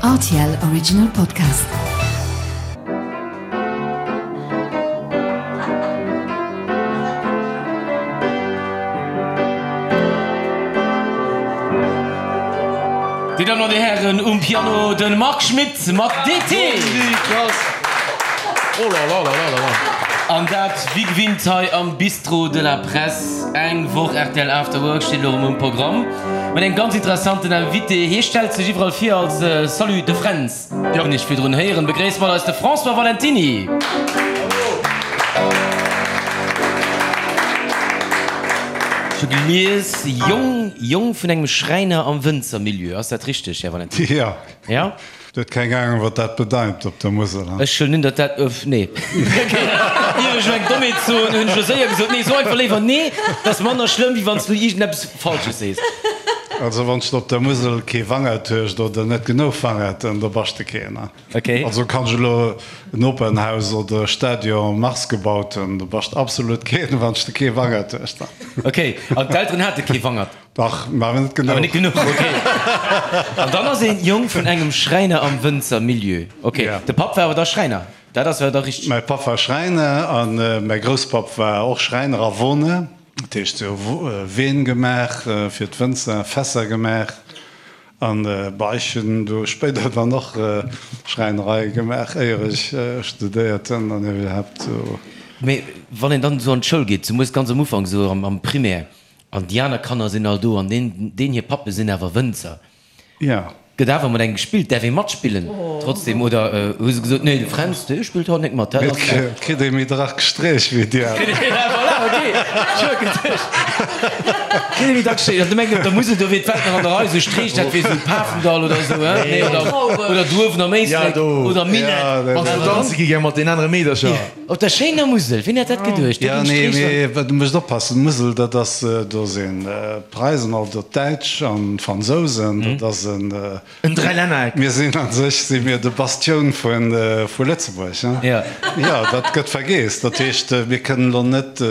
Rtl Original Podcast. Dir Dammen an Dir Hären, um Piano de Marc Schmitt mat DT. An dat wéi gewinnt hei am Bistrot de la Presse. Eng Woch rtl After Work steet elo erëm um Programm mat engem ganz interessanten Invité. Hie stellt sech iwwerall vir als Salut de Fränz, hunn ech virdrun héieren. Begréisst mat eis de François Valentiny. Ech hu gelies, Jong, Jong vun engem Schräiner am Wënzermilieu. Ass dat richteg, Här Valentiny? Jo. Ja? Du huet keng Ahnung wat dat bedeit op der Musel, he? Ech huelen un datt dat, öff, nee. Ok, ier ech elo eng Dommheet soen, hunn ech elo séier gesot, nee, so einfach léiwer nee, dat ass manner schlëmm wéi wann s du iergendeppes Falsches sees. Also wann s de op der Musel kee Wangert hues oder net genuch Wangerten, da bass de keen, he? Ok. Also kann ech elo en Opernhaus oder e Stadion Mars gebaut hunn, da bass de absolut keen, wann s de kee Wangert hues, da. Ok, an d'Elteren hate kee Wangert? Dach, mä awer net genuch. Awer net genuch, ok. An dann ass een Jong vun engem Schräiner am Wënzermilieu. Ok, de Papp war awer da Schräiner, dat ass awer da richteg. Mäi Papp war Schräiner a mäi Grousspapp war och Schräiner a Woner. Dat heescht, se hu Ween gemaach fir d'Wënzer, Fässer gemaach. An bah, ech hunn do spéider dann och Schräinerei gemaach, éier ech studéiert hunn an iwwerhaapt sou. Mee wann een dann esou an d'Schoul geet, zemools ganz am Ufank, esou am Primaire, An déi aner Kanner sinn all do an deen, deen hir Pappe sinn awer Wënzer. Jo. Gëtt awer mat engem gespillt? Däerf ee matspillen trotzdem oder hu se gesot, nee, de Fränz, dee spillt haut net mat, dat ass. Et kritt ee méi drak Streech wéi déi aner. Voilà, ok, ech hu geduecht, kritt ee méi dacks Streech. An du mengt op der Musel, do wier d'Welt nach an der Rei, esou Streech, dat wier esou Pafendall oder esou, hein? Nee, oder, oder Duerwen am Éislek oder Minett. Wann s du danze gi gär mat den anere Meedercher. Op der schéiner Musel, wien hätt dat geduecht? Jo, nee, mee du musst oppassen, d'Musel, dat ass, do sinn d'Preisen, also d'Däitsch an d'Fransousen, dat ass en. En Dräilännereck. Mir sinn a sech si mir de Bastioun vu Lëtzebuerg, hein? Jo. Jo, dat gëtt vergeess. Dat heescht, mir kënnen elo net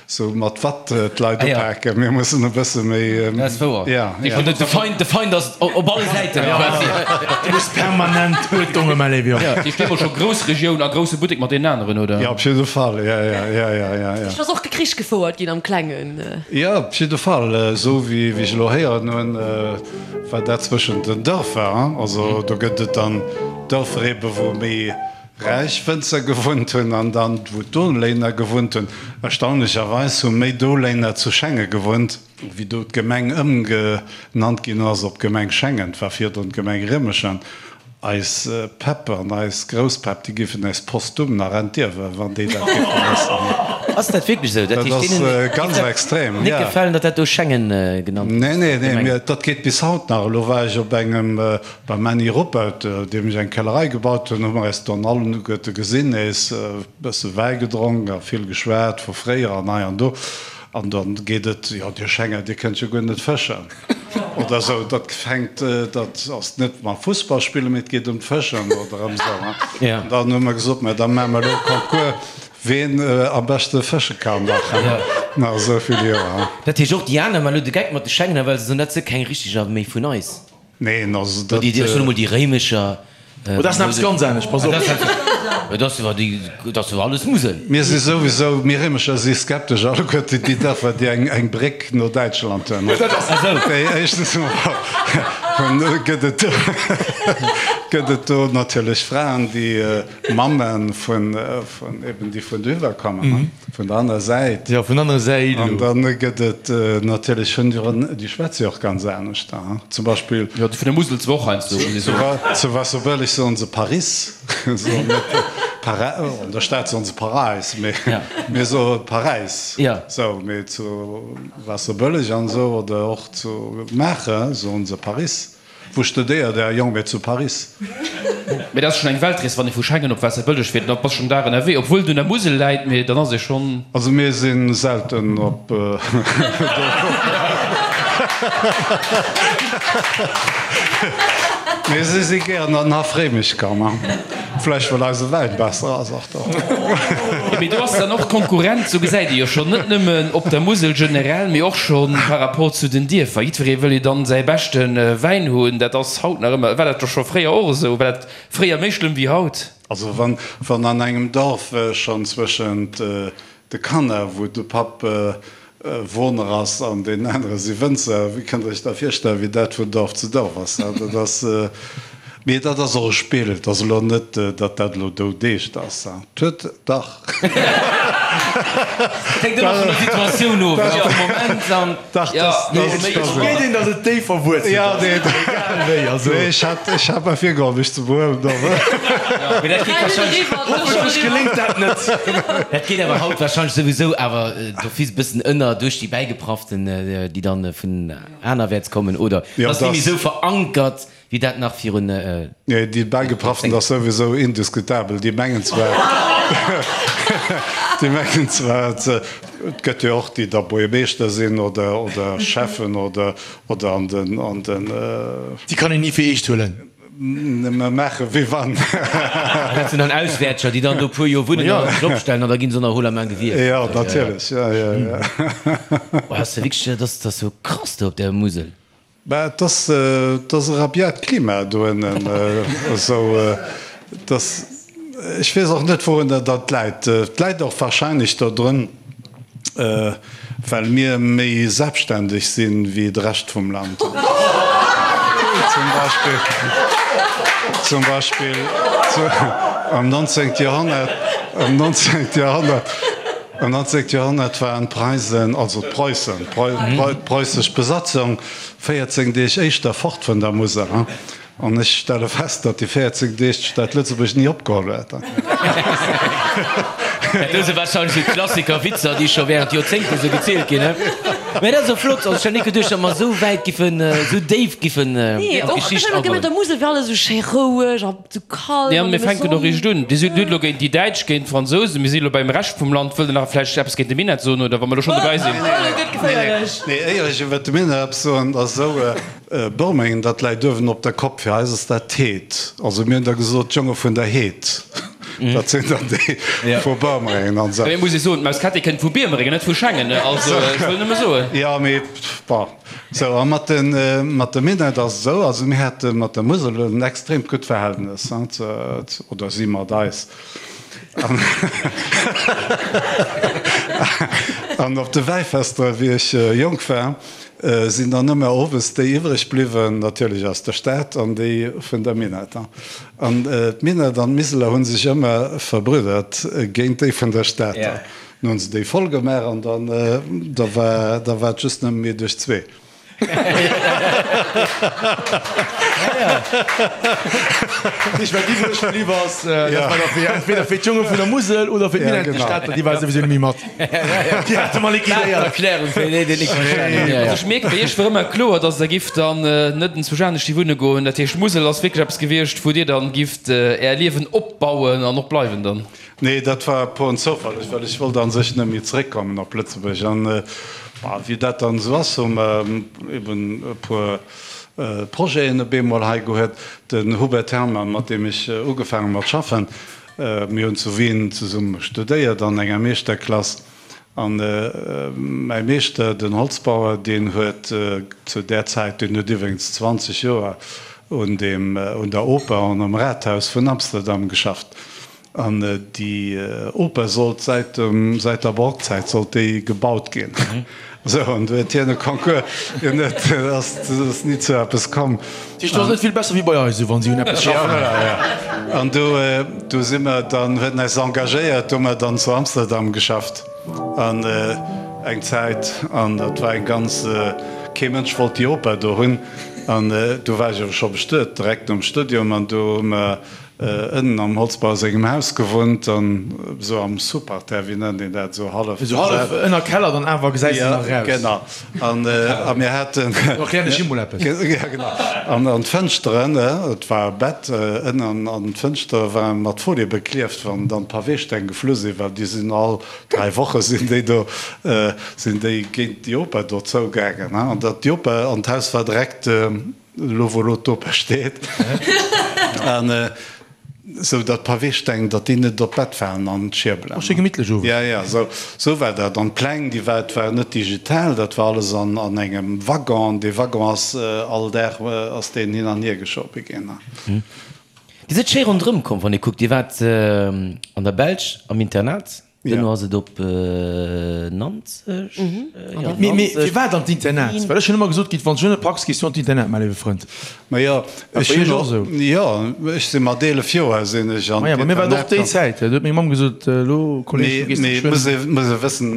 sou mat Watt d'Leit upaken, mir mussen e bësse méi. Dat ass wouer. Jo, jo. De Feind, de Feind ass op alle Säiten quasi. Du muss permanent Uerdnung ëm Léiw, jo. Dir steet mol scho Groussregioun a grousse Buttek mat deenen aneren, oder? Jo, op jidde Fall, jo, jo, jo, jo, jo, jo. Ech ass och Krich gefouert ginn am Klengen. Jo, op jidde Fall. Esou wéi ech elo héieren hunn, war dat zwëschent den Dërfer. Also do gëtt et dann Dërfer ebe wou méi räich Wënzer gewunnt hunn an dann wou d'Doléiner gewunnt hunn. Erstaunlecherweis hu méi Doléiner zu Schengen gewunnt, wéi do d'Gemeng ëmgenannt ginn ass op Gemeng Schengen. Et war virdrun d'Gemeng Rëmeschen. Eis Päpp an eis Grousspäpp, déi géifen äis postum nach entierwen, wann déi dat géife wëssen. Ass dat wierklech esou? Dat ass ganz extrem, jo. Net gefalen, datt dat do Schengen genannt gëtt? Nee, nee, nee, mee dat geet bis haut nach. Elo war ech op engem, beim Männi Ruppert, deem ech eng Kellerei gebaut hunn, hu mer äis dann alleguerte gesinn, nees e bësse Wäi gedronk a vill geschwat vu fréier an hei an do. An dann geet et, jo, Dir Schenger, Dir kënnt jo guer net fëschen. Oder esou, dat fänkt, dat ass net mam Fussball spillen, mee et geet ëm d'Fëschen oder ëm esou. An dann hu mer gesot, mä da maache mer elo e Concours, ween am beschte fësche kann nach nach esou vill Joer. Dat heescht och déi aner maachen elo de Geck mat de Schengener, well se soen, dat si keng richteger méi vun eis. Neen, also dat. Déi, ech soen emol déi Réimecher. Oh, dat ass nach eppes ganz anescht, pass op. Dat ass jo déi, dat ass jo alles Musel. Mir si souwisou, mir Réimecher si skeptesch alleguerten déi Dërfer, déi eng, eng Bréck no Däitschland hunn. Déi éischtens emol gëtt et do, gëtt et do natierlech Fraen, déi Mamme vun, vun eben déi vun dohiwwer kommen, vun der anerer Säit. Jo, vun anere Säit elo. An dann gëtt et natierlech, hunn déi och, déi schwätze jo och ganz anescht, zum Beispill. Jo, déi vun der Musel zwar och heiansdo, muss ee soen. Zu Waasserbëlleg soen se Paris, soen net Para, an der Stad soen se Paräis, mee mir soe Paräis. Sou, mee zu Waasserbëlleg an esou oder och zu Maacher soen se Paris. Wou studéiert Är Jong? Mee zu Paris. Mee dat ass schonn eng Weltrees, wann ee vu Schengen op Waasserbëlleg fiert, da bass schonn Dag ënnerwee, obwuel et un der Musel läit, mee dann ass ee schonn. Also mir si selten op do. Mee si si gären an Haff Réimech komm. Vläicht well eise Wäin besser ass och do. Jo, mee do ass dann och d'Konkurrenz, sou gesäit ee jo schonn, net nëmmen op der Musel generell, mee och scho par rapport zu den Dierfer. Jiddweree wëll jo dann säi beschte Wäin hunn. Dat ass haut nach ëmmer, war dat jo scho fréier och esou? War dat fréier méi schlëmm wéi haut? Also wann, wann an engem Dorf schonn zwëschent de Kanner, wou de Papp Woner ass an deen anere si Wënzer, wéi kënnt Der Iech da virstellen, wéi dat vun Dorf zu Dorf ass? Dat ass, mee dat ass och e Spill. Et ass elo net, datt dat elo doudeescht ass. Et huet dach. Et hänkt ëmmer vun der Situatioun of, jo, vum Moment an. Dach, dat ass. Et geet een, datt et déif verwuerzelt ass, egal wéi. Also. Nee, ech hat, ech hat mer virgeholl, mech ze behuelen. Mee dat geet wahrscheinlech. Hoffentlech geléngt dat net. Dat geet awer haut wahrscheinlech souwisou awer d'office e bëssen ënner duerch déi Bäigeprafften, déi dann vun anerwäerts kommen, oder? Jo, Ass net méi dass. esou verankert. Wéi dat nach virun. Nee, déi Bäigeprafften ass souwisou indiskutabel. Déi mengen zwar, déi mengen zwar, et gëtt jo och déi da Buergermeeschter sinn oder, oder Schäffen oder, oder an den, an den. Déi kann een ni fir eescht huelen. Nëmme maache wéi wann. Dat sinn dann Auswäertscher, déi dann do e puer Joer wunnen an sech opstellen an da gi se nach haut la main gewielt. Jo, natierlech, jo, jo, jo. Oh, ass jo wierklech, dat ass jo krass do op der Musel. Bah, et ass, et ass e rabiat Klima doënnen, esou dass, ech weess och net wourunner dat läit. Et läit och wahrscheinlech dodrun, well mir méi selbstständeg sinn wéi de Rescht vum Land. Zum Beispill, zum Beispill am 19. Joerhonnert, am 19. Joerhonnert, am 19. Joerhonnert waren d'Preisen, also d'Preussen, d'preussesch Besatzung 14 Deeg éischter fort vun der Musel. An ech stelle fest, datt déi 14 Deeg d'Stad Lëtzebuerg ni opgeholl huet. Dat do si warscheinlech esou Klassiker-Witzer, déi scho während Joerzéngten esou gezielt ginn. Mä dat ass och flott. Also ech hat ni geduecht, datt mer esou wäit giffen, esou déif giffen an d'Geschicht agoen. Nee, och ech der Musel wär alles esou schéi roueg a sou kal. Nee, an mir fänken och eréischt un. Dir sidd elo géint déi Däitsch, géint d'Fransousen. Mir si elo beim Rescht vum Land. Wëllt Der nach vläicht eppes géint de Minett soen, oder wa mer elo schonn dobäi sinn? Elo gëtt geféierlech. Nee, éier ech iwwert de Minett eppes soen, ass esou, Börmengen, dat läit uewen op der Kopp. Fir eis ass dat d'Heed. Also mir hunn da gesot, d'Jonge vun der Heed. Dat sinn dann déi vu Börmerengen an esou. Mee muss ee soen, d'Maus Kätti kënnt vu Biermerengen, net vu Schengen. Also ech wëll nëmme soen. Jo, mee bon. Sou, a mat de, mat de Minett ass et esou, also mir hate mat der Musel en extreemt gutt Verhältnes, oder si mat eis. An, an op de Wäifester, wéi ech jonk war, sinn dann ëmmer owes déi iwwreg bliwwen, natierlech aus der Stad, an déi vun der Minett. An d'Minett an d'Miseler hu sech ëmmer verbrüddert géint déi vun der Stad. Dann hunn se déi voll gemaach an dann da war da war et just nëmme mir duerch zwee. Ech wat iwwreg bliww ass, dat war da fir entweder fir d'Jonge vun der Musel oder fir d'Minett. Déi Stater, déi ware souwisou net méi mat. Déi hate mer liquidéiert. Erklärung fir déi, déi et nik verstanen hunn. Also ech mierken, bei iech wor ëmmer kloer, dass der gift dann net enzwousch anescht hi wunne goen. Dat heescht, d'Musel ass wierklech eppes gewiescht, wou dir dann gift är Liewen opbauen an och bleiwen dann. Nee, dat war puren Zoufall, well ech wollt a sech net méi zeréckkommen op Lëtzebuerg. An wéi dat dann esou ass, hu mer eben e puer Projeten op eemol hei gehuet. Den Hubert Herrmann, mat deem ech ugefaangen hu mat schaffen, mir hunn zu Wien zesumme studéiert an enger Meeschterklass. An mäi Meeschter, den Holzbauer, deen huet zu där Zäit, deen huet iwwregens 20 Joer un deem, un der Oper an am Rathaus vun Amsterdam geschafft. An déi Oper sollt säit dem, säit der Barockzäit sollt déi gebaut ginn. Esou, an du huet hien e Concours, hien huet, ass, ass ni zu eppes komm. Dat heescht, do ass net vill besser wéi bei eis, esou wann si un eppes schaffen. Ja, voilà, ja. An do, do si mer dann, huet en eis engagéiert, do hu mer dann zu Amsterdam geschafft an eng Zäit. An dat war eng ganz, kee Mënsch wollt déi Oper do hunn. An do war ech awer scho bestuet, direkt nom Studium. An do hu mer Ënnen am Holzbauer sengem Haus gewunnt an esou am Sous-parterre, wéi nennt een dat, esou hallef. Esou hallef ënner Keller, dann awer gesäis de nach eraus. Ja, genau. An a mir haten. Do erklären ech him mol eppes. Ja, genau. An an d'Fënschteren, et war e Bett ënnen, an d'Fënschtere ware mat Folie beklieft, wann dann d'Paweesteng geflu sinn, well déi sinn all 3 Woche sinn déi do, sinn déi géint déi Oper do zougaangen. An dat déi Oper an d'Haus war direkt. Elo wou elo d'Oper steet. An. Sou datt d'Paweesteng, datt déi net op d'Bett falen an d'Schierbelen. Oh, schéi gemittlech owes. Ja, ja, sou, sou war dat. An d'Pläng, déi war, et war net digital, dat war alles an, an engem Waggon. Dee Waggon ass all Dag ass deen hin an hier geschobe ginn. Dir sidd schéi ronderëm komm, wann ee kuckt. Dir waart an der Belsch am Internat. Duerno ass et op Nanzeg. Mee mee firwat an d'Internat? Well ech hunn ëmmer gesot kritt, wann s du net packs, gees du an d'Internat, mäi léiwe Frënd. Majo, War ech bei hunn iech och esou? Jo, ech si mat 11 Joer sinn ech an Maja, bei mir war et och déi d'Internat. Zäit. Do huet meng Mamm gesot, elo Kolleg, du Mee gees mee geschwënn. muss ee muss ee wëssen,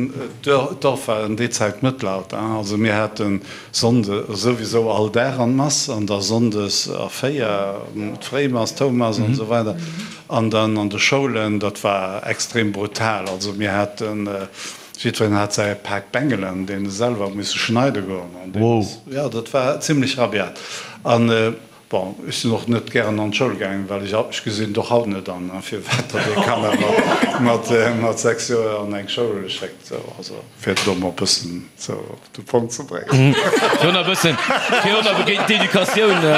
d'Dorf war an déi Zäit Mëttelalter, also mir hate Sonnde souwisou all Dag an d'Mass an da Sonndes a 4 d'Fréimass, d'Houmass an esou weider. An dann an de Schoulen, dat war extrem brutal. Also mir haten, jiddwereen hat säi Pak Bengelen, deen e selwer huet misse schneide goen. An deen ass, jo, dat war zimlech rabiat. An, bon, ech sinn och net gären an d'Schoul gaangen, well ech, ech gesinn et och haut net an, firwat datt ee Kanner mat, mat 6 Joer an eng Schoul schéckt. Sou, also fir et elo mol e bëssen sou op de Punkt ze bréngen. Fir och nach e bëssen, fir och nach géint d'Educatioun e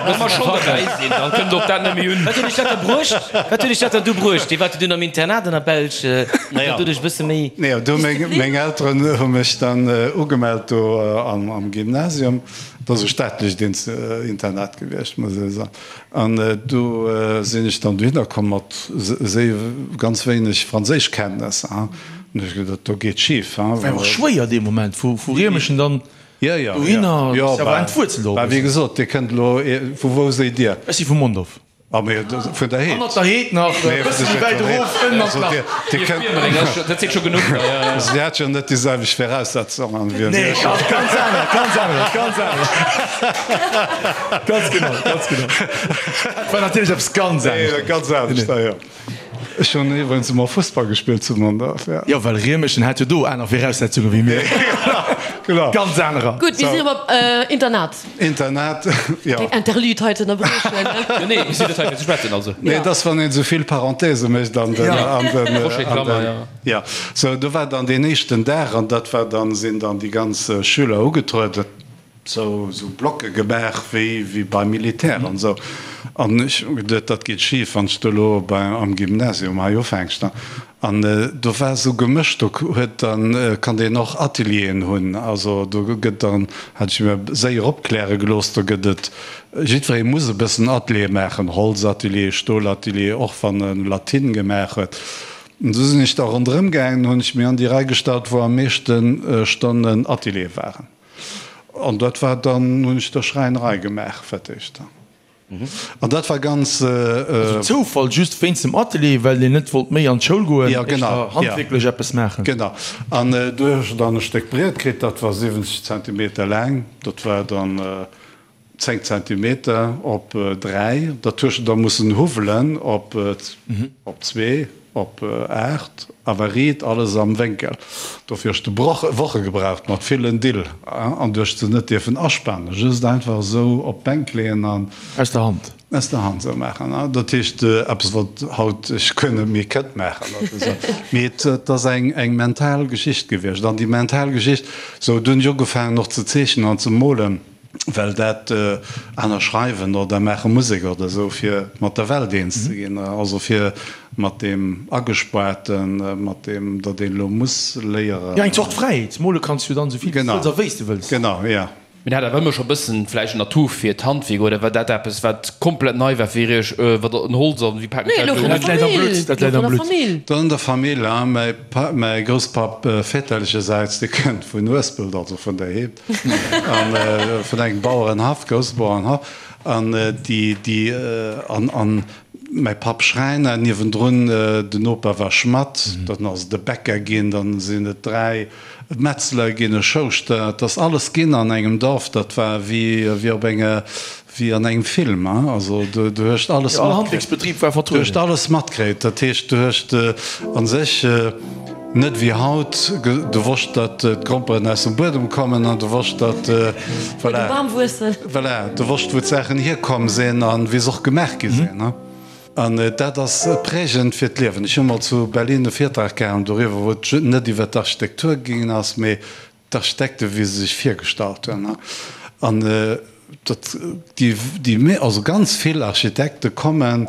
bëssen ze facken. Dann kënnt och dat net méi un. Wat huet iech dat da bruecht? Wat huet iech dat dann du bruecht? Dir waart jo dunn am Internat an der Belsch, Naja. dat doduerch e bësse méi. Nee, do meng, meng Elteren hu mech dann ugemellt do am, am Gymnasium. Dat ass e staatlecht Internat gewiescht, muss ee soen. An do sinn ech dann dohinner komm mat séi ganz wéineg Franséischkenntnesser. An hu ech geduet, do geet schif. War jo och schwéier dee Moment, vu Riemeschen dann dohinner, Jo, ass jo awer entwuerzelt och e bah, wéi bëssen. gesot, Dir kënnt elo, vu wou séi Dir? Ech si vu Mondorf. Ah, mee vun der Heed. Hannert der Heed nach e bësse méi wäit erof, ënnen an d'Lach. Dir kënnt. Dat seet scho genuch. Also Dir hat jo net déi selwecht Viraussetzungen wéi Nee, mir. ganz, ganz aner, ganz aner, ganz aner. Ganz genau, ganz genau. Dat war natierlech eppes ganz anescht. Nee, ganz anescht, ja, jo. Ech hunn iwwregens emol Fussball gespillt zu Mondorf, ja. Jo, well Riemeschen hat jo do aner Viraussetzunge wéi mir. Genau. Ganz anerer. Gutt, mir sinn erëm op Internat. Internat, jo. Keng Interlude hei ze ënnerbriechen. Jo, nee, mir sinn net hei fir ze schwätzen, also. Nee, et ass, wann een esou vill Parenthèse mécht an den, an den, an den, jo. Sou, do war dann deen éischten Dag an dat war dann, sinn dann déi ganz Schüler ugetrueden. Sou sou Blocke gemaach wéi wéi beim Militär an esou. An ech hu geduet, dat geet schif, wann s de elo bei am Gymnasium hei ufänks. An do war esou gemëscht, do huet dann, konnt een och Atelieren hunn. Also do gëtt dann, hat ech mir séier opkläre gelooss, do gëtt et, jiddweree muss e bëssen Atelier maachen, Holzatelier, Stolatelier, och wann e Latin gemaach huet. An du sinn ech da ronderëm gaangen, hunn ech mir an déi Rei gestallt, wou am meeschte Stonnen Atelier waren. An dat war dann, hunn ech da Schräinerei gemaach fir d'éischt. An dat war ganz. Also Zoufall, just wéinst dem Atelier, well een net wollt méi an d'Schoul goen, Ja, genau, éischter handwierklech eppes maachen. Genau. An do hu ech dann e Stéck Briet kritt, dat war 70 Zentimeter laang, dat war dann 10 Zentimeter op 3, dat hues de da mussen huwwelen op op zwee, op 8, awer riit, alles am Wénkel. Dofir hues de Woche gebraucht mat villen Dill an du hues se net dierfen aspanen, just einfach esou op d'Bänk leeën an. Aus der Hand. Aus der Hand esou maachen. Dat heescht eppes wat haut ech guer net méi kënnt maachen. Mee et ass eng mental Geschicht gewiescht an déi mental Geschicht, sou du hunn ech ugefaangen och ze zeechnen an ze molen. Well dat aner schreiwen oder maache Musek oder esou, fir mat der Welt eens ze ginn, also fir mat deem Agespaarten, mat deem, datt een elo muss léieren. Jo, eng Zort Fräiheet. Mole kanns du jo dann esou vill wéi s du wëlls a wéi s du wëlls. Genau, jo. Mir hat awer ëmmer scho bëssen vläicht en Atout fir d'Handwierk, oder war dat eppes wat komplett nei war fir iech, wat en Holz an wéi paken Nee, ech elo dat elo vun un? der Dat läit am Famill, Blutt, dat elo läit vun am der Blutt. Famill. Dann an der Famill, hein, mäi Pa, mäi Grousspapp väterlechersäits, dee kënnt vun Uespelt, also vun der Heed. An vun engem Bauerenhaff, grousse Bauerenhaff, an déi, déi, an, an mäi Papp Schräiner, niewendrun den Noper war Schmadd, dann ass et e Bäcker ginn, dann sinn et 3 Metzler ginn, e Schouschter, et ass alles ginn an engem Dorf, dat war wéi, wéi op enger, wéi an engem Film, hein, also du, du hues alles Jo, all matkritt. Handwierksbetrib war Du hues vertrueden. alles matkritt, dat heescht, du hues a sech net wéi haut, du wosst, datt d'Gromperen aus dem Buedem kommen an du wosst, datt, Wou de voilà, Bam wuessen. voilà, du wosst, wou d'Saachen hierkomm sinn an wéi se och gemaach gi sinn, hein. An dat ass prägend fir d'Liewen. Ech hu mol zu Berlin e Virtrag gehalen doriwwer, wou et net iwwer d'Architektur gaangen ass, mee d'Architekte wéi se sech virgestallt hunn an datt déi, déi, also ganz vill Architekte kommen.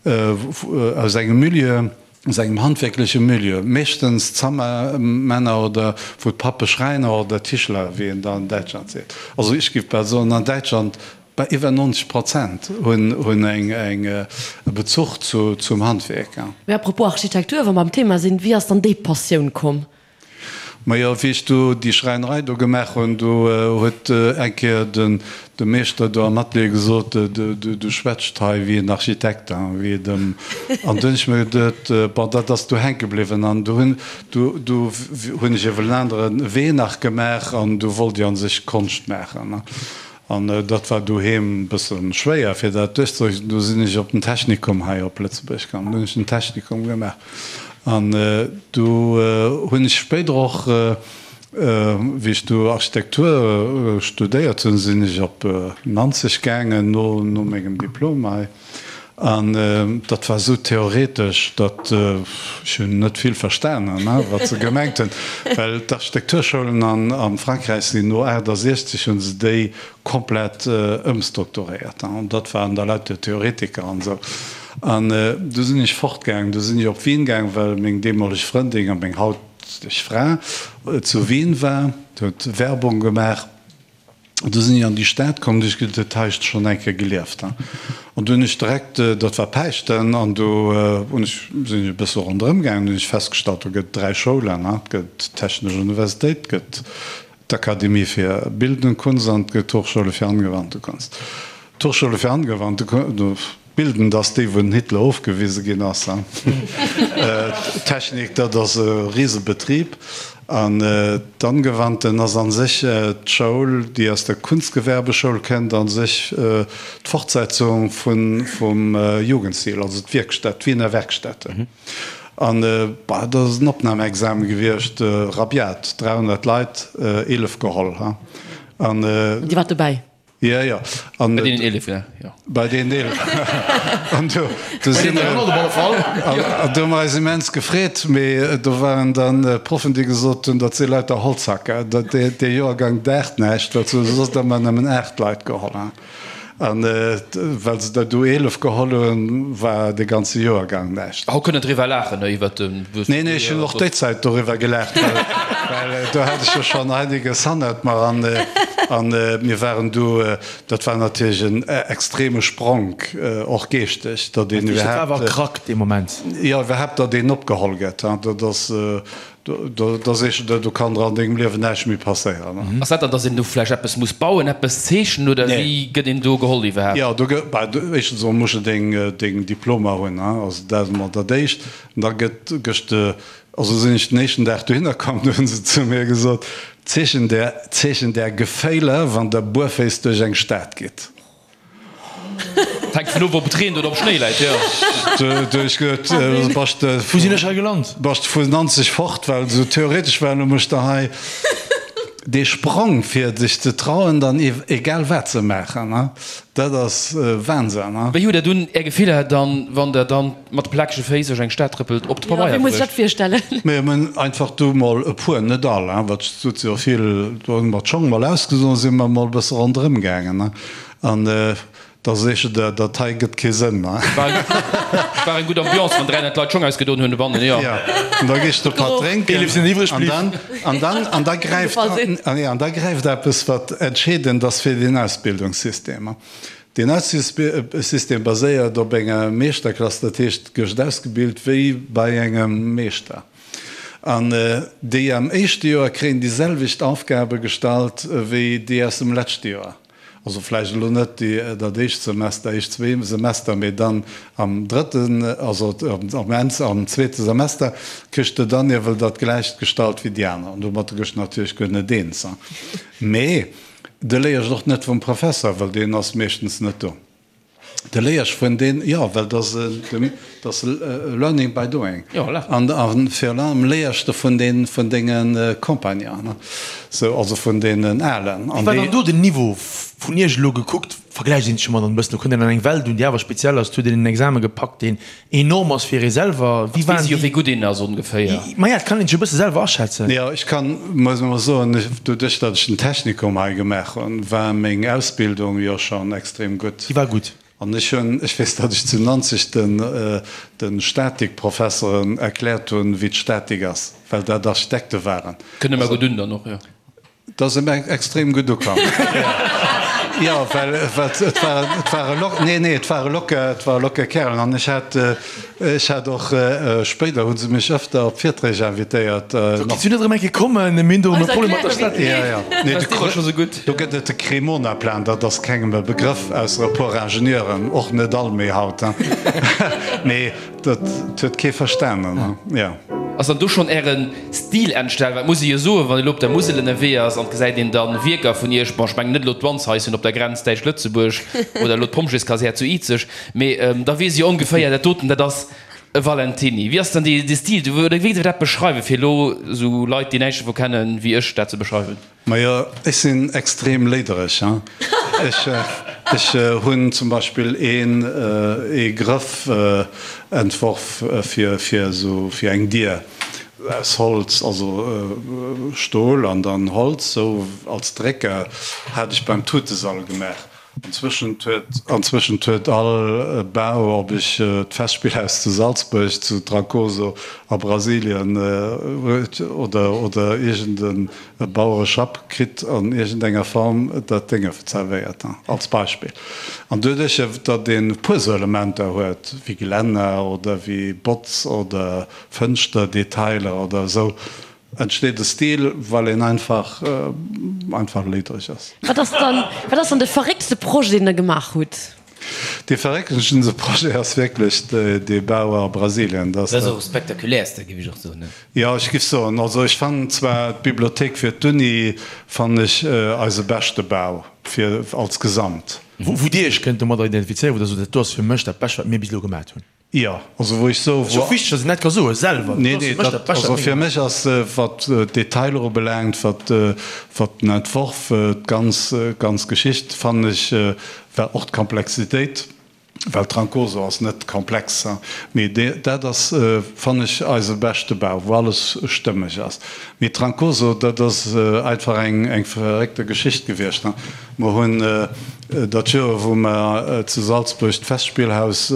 aus engem Milieu, aus engem handwierkleche Milieu, meeschtens Zammermänner oder wou d'Pappe Schräiner oder Tischler, wéi een da an Däitschland seet. Also ech géif bal soen, an Däitschland bei iwwer 90 Prozent hunn eng e Bezuch zum Handwierk. Mee à propos Architektur, wa mer am Thema sinn, wéi ass dann déi Passioun komm? Majo, wéi ech do déi Schräinerei do gemaach hunn, do huet eng Kéier den de Meeschter do am Atelier gesot, Du schwätzt hei wéi en Architekt, wéi et ëm. An du hunn ech mir geduet, bon, dat ass do hänke bliwwen. An du hunn du du hunn ech ewell en anere Wee nach gemaach an du wollt ech a sech Konscht maachen. An dat war doheem e bësse schwéier, fir dat duerchzedrécken. Du sinn ech op den Technikum hei op Lëtzebuerg gaangen. Du hunn ech den Technikum gemaach. An du hunn ech spéider och, wéi ech du Architektur studéiert hunn, sinn ech op Nanzeg gaangen no mengem Diplom hei. An dat war esou theoretesch, datt ech hunn net vill verstanen, wat se gemengt hunn, well d'Architekturschoulen a Frankräich sinn no 68 hu se déi komplett ëmstrukturéiert. An dat waren da lauter Theoretiker an esou. An du sinn ech fortgaangen, du sinn ech op Wien gaang, well meng deemoleg Frëndin a meng hauteg Fra zu Wien war, huet Werbung gemaach. Du sinn ech an déi Stad komm, du hu ech geduet, hei hues de schonn eng Kéier gelieft. An du hunn ech direkt, dat war Päischten, an du hunn ech, sinn ech e bësse ronderëm gaangen, du hunn ech festgestallt, do gëtt et 3 Schoulen, et gëtt d'Technesch Universitéit, et gëtt d'Akademie fir Bildende Kunst an et gëtt d'Hochschule für angewandte Kunst. D'Hochschule für angewandte Kunst, Bildend ass déi, wou den Hitler ofgewise ginn ass. D'Technik, dat ass e Risebetrib. An d'Angewandten ass a sech d'Schoul, déi aus der Kunstgewerbeschoul kënnt, a sech d'Fortsetzung vum Jugendstil, also d'Wierkstätt, d'Wiener Werkstätte. An dat ass en Opnamexame gewiescht, rabiat, 300 Leit, 11 geholl. An Dir waart dobäi? Jo, jo. An bei deenen 11, ja, jo. Bei deenen 11. An do, do si mer, an do hu mer eis immens gefreet, mee do waren dann Proffen, déi gesot hunn, dat si lauter Holzhacker, dat, dee, dee Joergang daacht näischt, well se hu soss ëmmer nëmmen 8 Leit geholl. An well se der du 11 geholl hunn, war dee ganze Joergang näischt. Haut kënnt en driwwer laachen, ne, iwwert de. Nee, nee, ech hunn och déi Zäit doriwwer gelaacht, well do hat ech jo schonn einiges hannert mer an an mir waren du, dat war natierlech en extreme Spronk, och geeschteg, datt een iwwerhaapt. Dat war awer Krack dee Moment. Jo, iwwerhaapt, datt een opgeholl gëtt, dat ass. Da sees de der, do kann der an dengem Liewen näischt méi passéieren. Ass dat dann, dass een do vläicht eppes muss bauen, eppes zeechnen oder wéi gëtt een do geholl iwwerhaapt? Jo, do gëtt, bah, éischtens emol muss de deng, deng Diplomer hunn, hein, also dat ass emol dat éischt. An da gëtt, gëss de, also sinn ech den éischten Dag dohinner komm, do hunn se zu mir gesot, Zeechen der, Zeechen der Geféiler, wann der buerféiss duerch eng Stad gitt. Hänkt vun of, ob et reent oder ob Schnéi läit, jo. Du hues geduet, bass de. Wou sinn ech hei gelant? Bass de vun Nanzeg fort, well esou theoretesch war, elo mécht der hei dee Sprong, fir dech ze trauen, dann egal wat ze maachen, dat ass Wahnsinn. Wéi hutt der dunn är Gefiller dann, wann der dann mat de plakege Féiss duerch eng Stad trëppelt, op de Pabeier bruecht? Wéi muss ech dat virstellen? Mir hunn einfach du mol e puer, net all, wat et sot jo vill, do hu mer d'Schong mol ausgesoen, si mer mol e bësse ronderëm gaangen. An da seech de, dat hei gëtt kee Sënn. War eng gutt Ambiance, wann 300 Leit Schong ausgedoen hunn dobannen, jo. Jo, an da gees de e Patt drénken. An dann, an dann, an da gräift, an da gräift eppes, wat entscheedend ass fir deen Ausbildungssystem. Deen Ausbildungssystem baséiert op enger Meeschterklass, dat heescht, gëscht ausgebilt wéi bei engem Meeschter. An déi am éischte Joer kréien déi selwecht Aufgabe gestallt wéi déi aus dem leschte Joer. Also vläicht elo net déi, dat éischt Semester, éischt zwee Semester, mee dann am drëtten, also am Enn, am zweete Semester kriss de dann iewel dat gläicht gestallt wéi déi aner. An domatter gëss de natierlech guer net eens. Mee de léiers och net vum Professer, well deen ass meeschtens net do. De léiers vun deen, jo, well dat ass learning by doing. An virun allem léiers de vun deen, vun denge Compagnonen, sou, also vun deenen Alen. Wéi war dann do den Niveau vun Iech elo gekuckt? Vergläicht een sech ëmmer dann e bëssen, do kënnt een an eng Welt un, déi awer speziell ass, et huet een en Exame gepackt, deen enorm ass fir ee selwer. Wéi waren déi? Wéi gutt een ass ongeféier. Maja, et kann een sech e bësse selwer aschätzen. Jo, ech kann, muss emol soen, doduerch datt ech den Technikum hei gemaach hunn, war meng Ausbildung jo schonn extrem gutt. Déi war gutt. An ech hunn, ech weess, datt ech zu Nanzeg den, de Statikprofesseren erkläert hunn, wéi d'Statik ass, well dat Architekte waren. Kënne mer gutt un dann och, jo. Dat ass em extrem gutt ukomm. Jo, well et war, et ware lock, nee, nee, et ware locker, et ware locker Kärelen. An ech hat, ech hat och, spéider hu se mech ëfter op Virträg invitéiert. So, kinns du net erëm eng Kéier kommen? Mir hunn do erëm e Problem mat der Statik. Jo, jo. Nee, de War scho sou gutt. Do gëtt et de Cremona-Plan, dat ass kengem e Begrëff, ausser e puer Ingenieuren, och net all méi haut, hein. Mee Dat huet kee verstanen, jo. Ass dann do schonn Äre Stil entstanen? Well et muss ee jo soen, wann ee lo op der Musel ënnerwee ass an et gesäit een dann Wierker vun Iech, bon ech mengen net elo d'Wandshaischen op der Grenz Däitsch-Lëtzebuerg oder elo d'Pompjeeskasär zu Izeg, mee da weess ee jo ongeféier, dat doten, dat ass e Valentiny. Wéi ass dann dee Stil oder wéi géif Der dat beschreiwen, fir elo esou Leit, déi näischt dovu kennen, wéi ech, dat ze beschreiwen? Majo, ech sinn extrem léidereg. Ech, ech hunn zum Beispill een, ee Grëff entworf fir, fir esou, fir eng Dier aus Holz, also Stol an dann Holz, sou als Drécker, hat ech beim Tutesall gemaach. Anzwëschent huet, anzwëschent huet all Bau, ob ech d'Festspillhaus zu Salzburg, zu Trancoso a Brasilien oder, oder iergend e Bauereschapp kritt an iergend enger Form dat Dénge zerwéiert, als Beispill. An doduerch, datt een e puer esou Elementer huet, wéi Gelänner oder wéi Botz oder Fënschter-Detailer oder esou, Entsteet e Stil, well een einfach einfach léidereg ass. Wat ass dann, wat ass dann de verrécktste Projet, deen Der gemaach hutt? Dee verrécktesten Projet ass wierklech dee Bau a Brasilien. Dat ass och e spektakuläerste, géif ech och soen, ne? Jo, ech géif soen, also ech fannen zwar d'Bibliothéik fir d'Uni fannen ech eise beschte Bau fir als Gesamt. Wou Dir Iech kënnt domadder identifizéieren, wou Der sot, dat do ass fir mech dat Bescht, wat mir bis elo gemat hunn? Jo, also wou ech soe wou. Ass jo wichteg, datt een dat ka soe selwer. Nee, nee, dat, also fir mech ass, wat d'Detailer ubelaangt, wat, wat den Entworf, d'ganz, ganz Geschicht, fannen ech, war och d'Komplexitéit, well Trancoso ass net komplex, mee dat ass, fannen ech, eise beschte Bau, wou alles stëmmeg ass. Mee Trancoso, dat ass einfach eng, eng verréckte Geschicht gewiescht. Mer hunn dat Joer, wou mer zu Salzburg d'Festspielhaus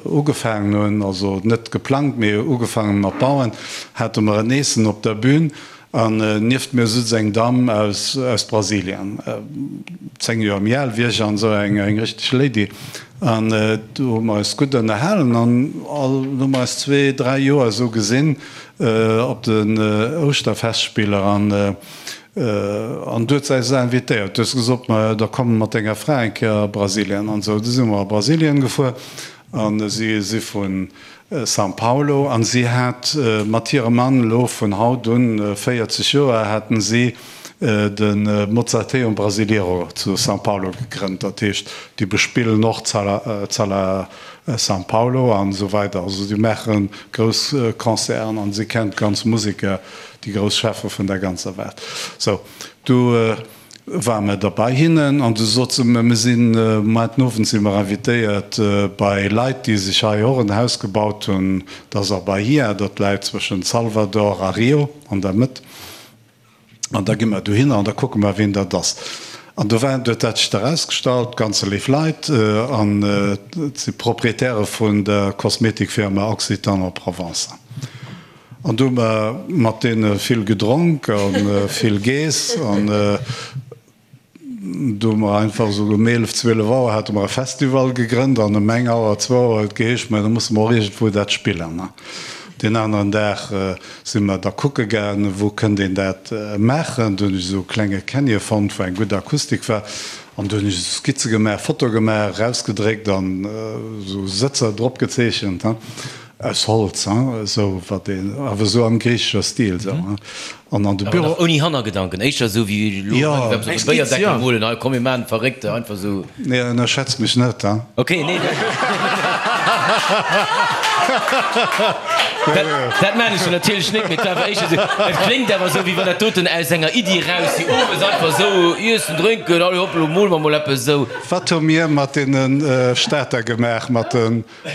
ugefaangen hunn, also net geplangt, mee ugefaangen mat bauen, hate mer en Eessen op der Bühn an nieft mir sutz eng Damm aus Brasilien, 10 Joer méi al wéi ech an esou eng richteg Lady. An do hu mer eis gutt ënnerhalen an all hu mer eis zwee, dräi Joer esou gesinn op den Ouschterfestspiller. An An du huet se eis invitéiert. Du hues gesot, ma da komm mat denger Fra eng Kéier a Brasilien an esou. Du si mer a Brasilien gefuer an si si vu São Paulo an si hat mat hirem Mann elo vun haut un 40 Joer haten si de Mozarteum Brasileiro zu São Paulo gegrënnt. Dat heescht, déi bespillen och d'Sala São Paulo an esou weider. Also déi maache grouss Concerten an si kennt d'ganz Museker. Déi grouss Cheffe vun der ganzer Welt. Sou, du ware mer da bei hinnen an du sot se mer, mir sinn, muer den Owend si mer invitéiert bei Leit, déi sech hei och en Haus gebaut hunn, dat ass a Bahia, dat läit zwëschent Salvador a Rio, an der Mëtt. An da gi mer dohinner an da kucke mer, wien dat ass. An do waren, huet dat sech da erausgestallt, ganz léif Leit an et si Proprietäre vun der Kosmetikfirma Occitane en Provence. An du hu mer mat deene vill gedronk a vill geess. An du hu mer einfach esou um 11, 12 Auer hate mer e Festival gegrënnt an ëm eng Auer, zwou Auer huet et geheescht, mä da musse mer och iergendwou dat spillen. Deen aneren Dag si mer da kucke gaangen, wou kënnt een dat maachen. Du hunn ech esou e klenge Canyon fonnt, wou eng gutt Akustik war. An du hunn ech esou Skizze gemaach, Foto gemaach, erausgedréckt an esou Sëtzer drop gezeechent. Aus Holz, hein, esou wat een, awer esou am griichescher Stil, esou, hein. An an de Awer Büro. nach ouni Hannergedanken, éischter esou wéi elo Jo. hei eppes op de Béierdeckel molen, hei komm mir maachen d'Verréckte, einfach esou. Nee, ënnerschätz mech net, hein. Ok, nee. Dat maan ech jo natierlech net, mee et war awer éischter esou, et kléngt awer esou, wéi wann dat doten aus enger Iddi eraus, déi owes einfach esou iessen, drénken, allez hopp, elo mole mer mol eppes esou. Wat hu mir mat deene Stater gemaach, mat de.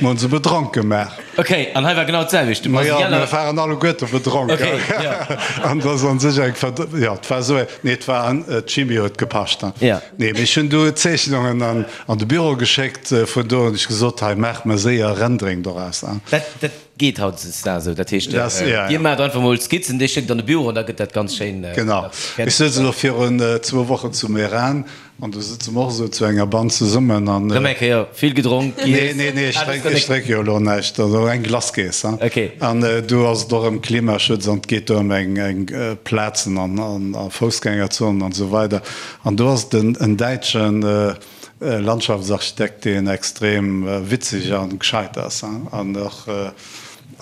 Mir hunn se bedronk gemaach. Ok, an hei war genau d'selwecht. Ma jo, mir waren alleguerte bedronk. Ok, jo. An dat ass an sech eng Verd-, jo, et war esou eng, nee, et war an, d'Chimie huet gepascht. Jo. Nee, mee ech hunn du Zeechnungen an, an de Büro geschéckt vun do hunn ech gesot, hei, maach mer séier Rendering doraus. Dat, dat geet hautdesdaags esou. Dat heescht, Dat, ja, ja. Dir maacht einfach mol Skizzen, dir schéckt an de Büro an da gëtt dat ganz schéin Genau. fäerdeg. Ech souz elo virun zwou Wochen zu Meran An do sëtze mer och esou zu enger Band zesummen an. Rëm eng Kéier vill gedronk, Nee, giess? nee, nee, ech drénk, ech drénk jo elo näischt. Also eng Glace geess, hein. Ok. An do ass et och ëm Klimaschutz an et geet do ëm eng, eng Plazen an, an a Foussgängerzonen an esou weider. An do ass et en, en däitschen Landschaftsarchitekt, deen extrem witzeg an gescheit ass, hein, an och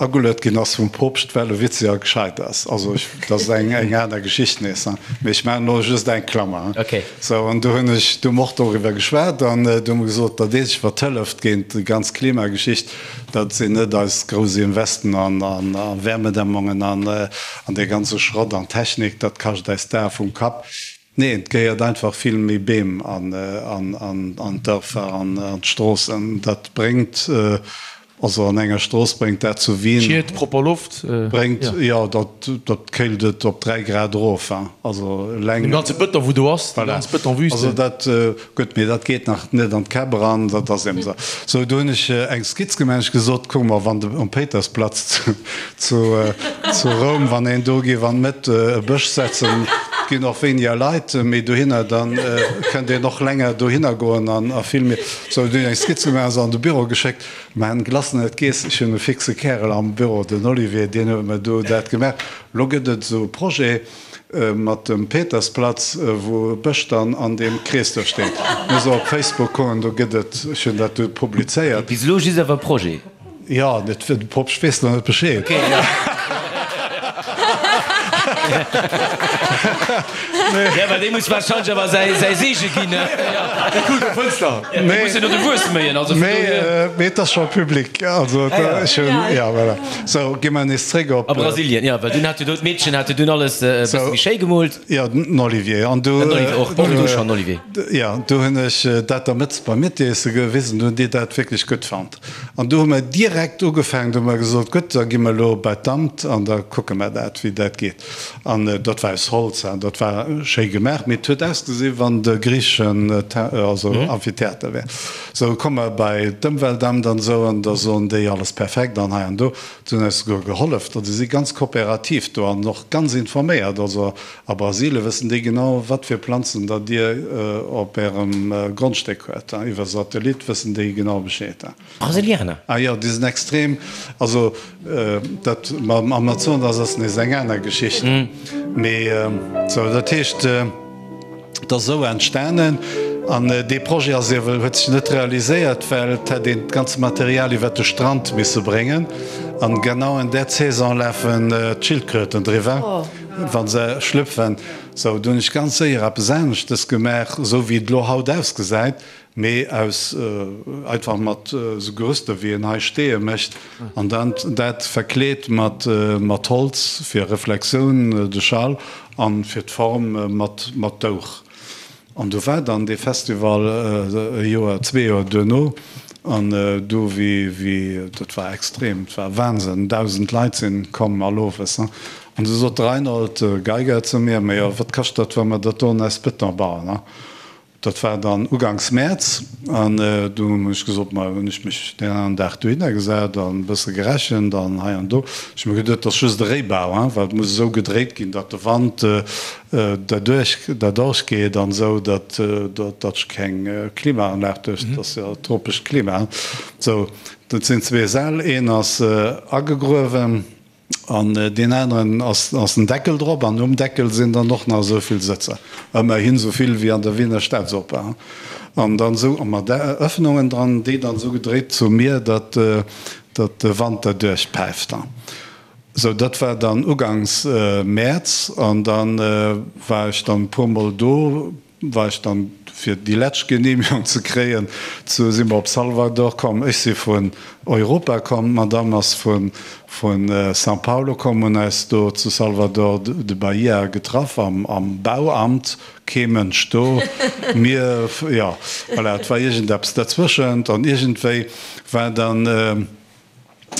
Ageluet ginn ass vum Poopscht, well e witzeg a gescheit ass. Also ech, dat ass eng eng aner Geschicht nees, hein. Mee ech maachen elo just eng Klammer, hein. Okay. Sou, an do hunn ech, do hu mer och doriwwer geschwat an do hu mer gesot, dat eenzegt wat hëlleft géint déi ganz Klimageschicht, dat sinn net eis grouss Investen an an a Wärmedämmungen an an dee ganze Schrott an Technik, dat kascht eis d'Ae vum Kapp. Nee, et gehéiert einfach vill méi Beem an d'Dërfer an an d'Stroossen. Dat bréngt, also an enger Strooss bréngt dat zu Wien. Schied, propper Loft. Bréngt, jo, dat dat kéilt et op 3 Grad erof, hein. Also eleng. Dee ganze Bëton, wou do ass, déi ganz Bëtonwüste. Also dat, gutt, mee dat geet nach net an d'Käpp eran, dat ass eben esou. Sou, do hunn ech eng Skizz gemaach, ech gesot, kuck mol, wann de um Péitersplatz zu zu Roum, wann een do géif an d'Mëtt e Bësch setzen, ginn och wéiniger Leit méi dohinner, da kënnt een och länger dohinner goen an a vill méi. Sou, dunn eng Skizz gemaach, se an de Büro geschéckt. Mä en Glace net geess. Ech hunn e fixe Kärel am Büro, den Olivier, deen huet mer do dat gemaach. Lo gëtt et esou e Projet mat dem Petersplatz, wou e Bësch dann an deem Krees do steet. Muss op Facebook goen, do gëtt et, ech hunn dat do publizéiert. Bis elo just awer e Projet. Jo, net fir de Poopst weess nach net Bescheed. Okay, ja. Ja, well dee muss wahrscheinlech awer säi, säi Seege ginn, ne? Ja. Der kuckt op d'Fënster. Dee muss jo no de Wuess méien, also vun dohier. Mee, mee et ass scho public, also et, ech hunn, ja, voilà. Sou, gi mer nees zréck op. A Brasilien, ja, well dunn hat jo do d'Meedchen hat jo dunn alles e bësse méi schéi gemoolt. Jo, den Olivier. An du. Den Olivier och, och du schonn, Olivier. Jo, du hunn ech dat der Mëtz beim Miettiesse gewisen, du hunn déi dat wierklech gutt fonnt. An do hu mer direkt ugefaangen, do hu mer gesot, gutt, da gi mer elo bei d'Amt an da kucke mer dat, wéi dat geet. An dat war aus Holz an dat war schéi gemaach, mee et huet ausgesi wann de griicheschen also Amphitheater wär. Sou komme mer bei d'Ëmweltamt an esou an da soen déi, alles perfekt an hei an do. Se hunn eis souguer gehollef, also si si ganz kooperativ do an och ganz informéiert. Also a Brasilie wëssen déi genau, wat fir Planzen datt Dir op Ärem Grondstéck huet. Iwwer Satellit wëssen déi genau Bescheed. Brasilianer? Ah jo, déi sinn extrem. Also dat mam Amazonas ass nees eng aner Geschicht. Mee sou, dat heescht, et ass esou entstanen. An dee Projet ass iewel, huet sech net realiséiert, well et hätt een d'ganze Material iwwer de Strand misse bréngen. An genau an där Saison lafen d'Schildkröten driwwer. Wa se schlüpfen. Sou, do hunn ech ganz séier eppes aneschtes gemaach, esou wéi et elo haut ausgesäit, mee aus einfach mat esou Gerüster wéi een hei Steeë mécht an dann dat verkleet mat mat Holz fir Reflexioun, de Schall, an fir d'Form mat mat Douch. An do war dann dee Festival e Joer, zwee Joer duerno. An do wéi, wéi, dat war extrem, et war Wahnsinn, 1.000 Leit sinn komm all owes. An du sot de Reinhold Geiger zu mir, Ma jo, wat kascht dat, wa mer dat do an eis Beton bauen? Dat war dann uganks Mäerz. An du hunn ech gesot, ma hunn ech mech deen aneren Dag dohinner gesat an e bësse gerechent an hei an do. Ech hu mir geduet, dat ass just e Réibau, well et muss esou gedréit ginn, datt de Wand derduerch derduerch geet an esou, datt datt ech keng Klimaanlag duerch, dat ass jo tropescht Klima. Sou, dat sinn zwee Säll, een ass agegruewen an deen aneren ass ass en Deckel drop an um Deckel sinn dann och nach esou vill Sëtzer, ëmmerhin esou vill wéi an der Wiener Staatsoper. An dann esou mat Öffnungen dran, déi dann esou gedréit zu mir, datt datt de Wand derduerch päift. Sou, dat war dann ugangs Mäerz an dann war ech dann e puer mol do. war ech dann, fir déi lescht Genehmigung ze kréien, zu si mer op Salvador komm. Ech si vun Europa komm, d'Madame ass vu São Paulo komm, hunn eis do zu Salvador de Bahia getraff am Bauamt, kee Mënsch do, mir, jo, voilà, et war iergendeppes derzwëschent an iergendwéi war dann,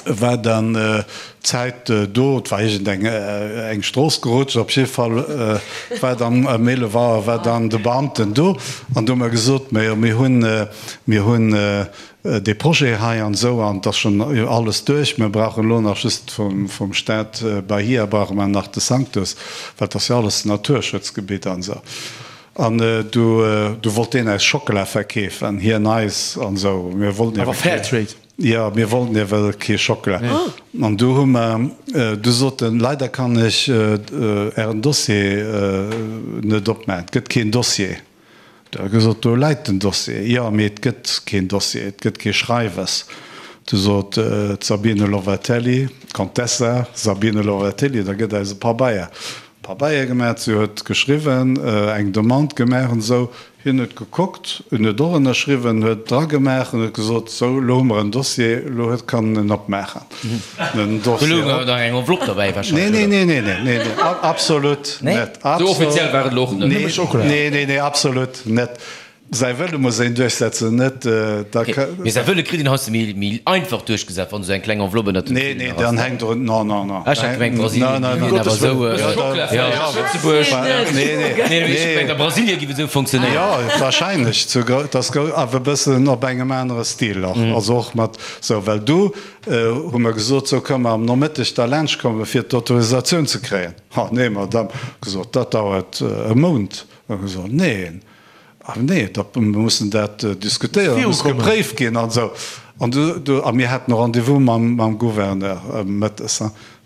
war dann d'Zäit do, et war iergend eng eng Strooss gerutscht, op jidde Fall war dann ëm 11 Auer war dann de Beamten do an do hu mer gesot, majo mir hunn, mir hunn dee Projet hei an esou an et ass schonn alles duerch, mir brauchen elo nach just vum vum Staat Bahia brauche mer nach de Sanctus, well et ass jo alles Naturschutzgebitt an esou. An du du wollt deen eis Schockela verkeefen, hien eis an esou, mir wollten Awer Fairtrade. Jo, mir wollten ewell kee Schockela. An du hu mer, du sot en, leider kann ech Ären Dossier net opmaachen, et gëtt keen Dossier. Du hu gesot, do läit den Dossier. Jo, mee et gëtt keen Dossier, et gëtt kee Schreiwes. Du sot d'Sabine Lovatelli, d'Contessa Sabine Lovatelli, da gëtt eis e Pabeier. Pabeier gemaach, si huet geschriwwen, eng Demande gemaach an esou. Hien huet gekuckt, en huet och ënnerschriwwen, huet dragemaach an huet gesot, Sou, elo hu mer en Dossier, elo huet kann en opmaachen. Den Dossier op. Do louch nach eng Enveloppe derbäi wahrscheinlech, oder? Nee, nee, nee, nee, nee, nee, absolut net. Sou offiziell war et elo och net. Nee, nee, nee, nee, absolut net. Säi Wëlle muss een duerchsetzen, net da. Mee säi Wëlle kritt een heiansdo méi, méi einfach duerchgesat, wann esou eng kleng Enveloppe ënnert dem Nee, nee, dann hänkt och, non, non, non. Ech hat gemengt, Brasilien géif een awer esou. Lëtzebuerg. Nee, nee, nee, ech gemengt a Brasilien géif et esou funktionéieren. Jo, wahrscheinlech, zu, dass awer e bëssen op engem anere Stil och, also och mat esou, well du hu mer gesot, sou kënne mer am Nomëtteg da laanscht komme fir d'Autorisatioun ze kréien. Ha nee, Madame, gesot, dat dauert e Mount. Hu gesot, neen. Ah nee, da mir mussen dat diskutéieren, dat muss gepréift ginn an esou. An du, du, a mir haten e Rendez-vous mam, mam Gouverneur mëttes.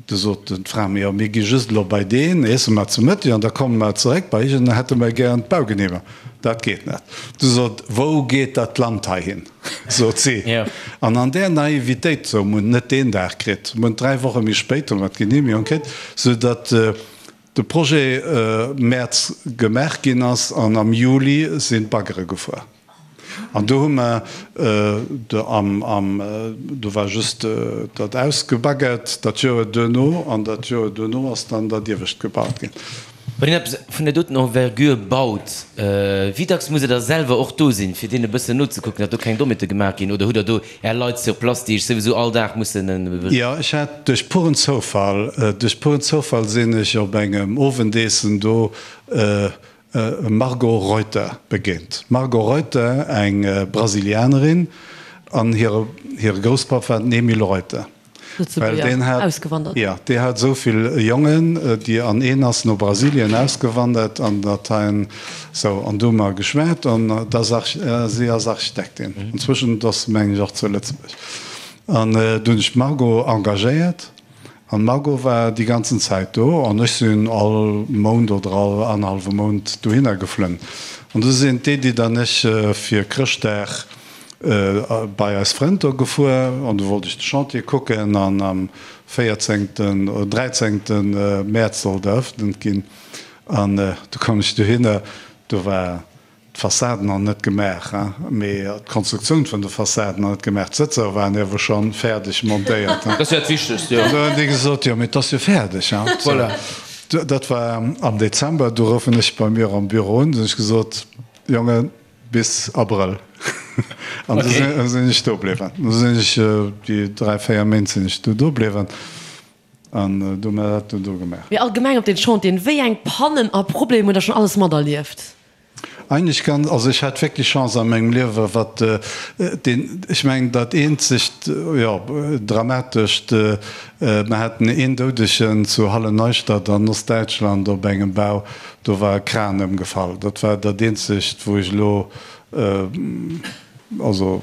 Du sot d'Fra, jo, mir gi just elo bei deen, iesse mer zu Mëtteg an da komme mer zeréck bei iech an da hätte mer gären d'Baugenehmegung. Dat geet net. Du sot, wou geet dat Land hei hin? sot si. An an där Naivitéit, sou, mir hunn et net deen Dag kritt, mir hunn et dräi Woche méi spéit hu mer d'Genehmegung kritt, soudatt, De Projet Mäerz gemaach ginn ass an am Juli sinn d'Baggere gefuer. An do hu mer am, am, do war just dat ausgebaggert dat Joer duerno an dat Joer duerno ass dann dat iewescht gebaut ginn. Wann een eppes vun där doten Envergure baut, wéi dacks musst Der da selwer och do sinn, fir deenen e bëssen nozekucken, datt do keng Dommheete gemaach ginn? Oder hutt Der do Är Leit sur place, déi Iech souwisou all Dag mussen. Jo, ech hat duerch puren Zoufall, duerch puren Zoufall sinn ech op engem Owendeessen do Margot Reuter begéint. Margot Reuter, eng Brasilianerin, an hire hire Grousspapp war den Emile Reuter. Well deen hat, jo, dee hat esou vill Jongen, déi, an een ass no Brasilien ausgewandert an dat hein, sou, an do hu mer geschwat an dat ass Arch, si ass Architektin inzwischen, ass se mengen ech och zu Lëtzebuerg. An du hunn ech d'Margot engagéiert an d'Margot war déi ganzen Zäit do an ech sinn all Mount oder all annerhallwe Mount dohinner geflunn. An du sinn d'Edith an ech fir Chrëschtdag bei eis Frënn do gefuer an du wollt ech de Chantier kucken an am véierzéngten oder dräizéngten Mäerz sollt eröffnet ginn an du koum ech dohinner, do war d'Fassade nach net gemaach, mee d'Konstruktioun vun de Fassaden nach net gemaach, d'Sëtzer waren iewer schonn fäerdeg montéiert. Dat ass jo dat Wichtegst, jo. An du hunn déi gesot, jo mee et ass jo fäerdeg. Voilà. Dat war am Dezember, du roufen ech bei mir am Büro un, du hunn ech gesot, Jongen, Bis Abrëll. An du sinn ech do bliwwen. Du sinn ech déi 3, 4 Méint sinn ech du do bliwwen an du hu mer dat du do gemaach. Mee allgemeng op den Chantieren, wéi eng Pannen a Problemer hutt der schonn alles materlieft? Eigentlech ganz, also ech hat wierklech Chance a mengem Liewe wat deen, ech mengen dat eenzegt, jo dramatescht, mer haten een Doudegen zu Halle-Neustadt an Ostdäitschland op engem Bau, Do war e Kran ëmgefall. Dat war dat eenzegt, wou ech elo, also,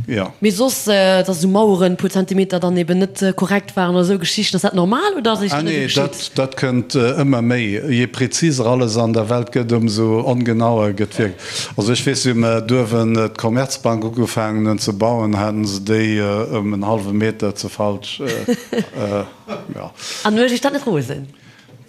jo. Mee soss, dass esou Maueren e puer Zentimeter dann eben net korrekt waren oder esou Geschichten, ass dat normal oder ass Ah nee, dat, dat kënnt ëmmer méi. Je präziser alles an der Welt gëtt, ëmsou ongenauer gëtt wierklech. Also ech weess, wéi mer duerwen d'Commerzbank ugefaangen hunn ze bauen, haten se déi ëm en hallwe Meter ze falsch, jo. An huet Iech dat net rosen?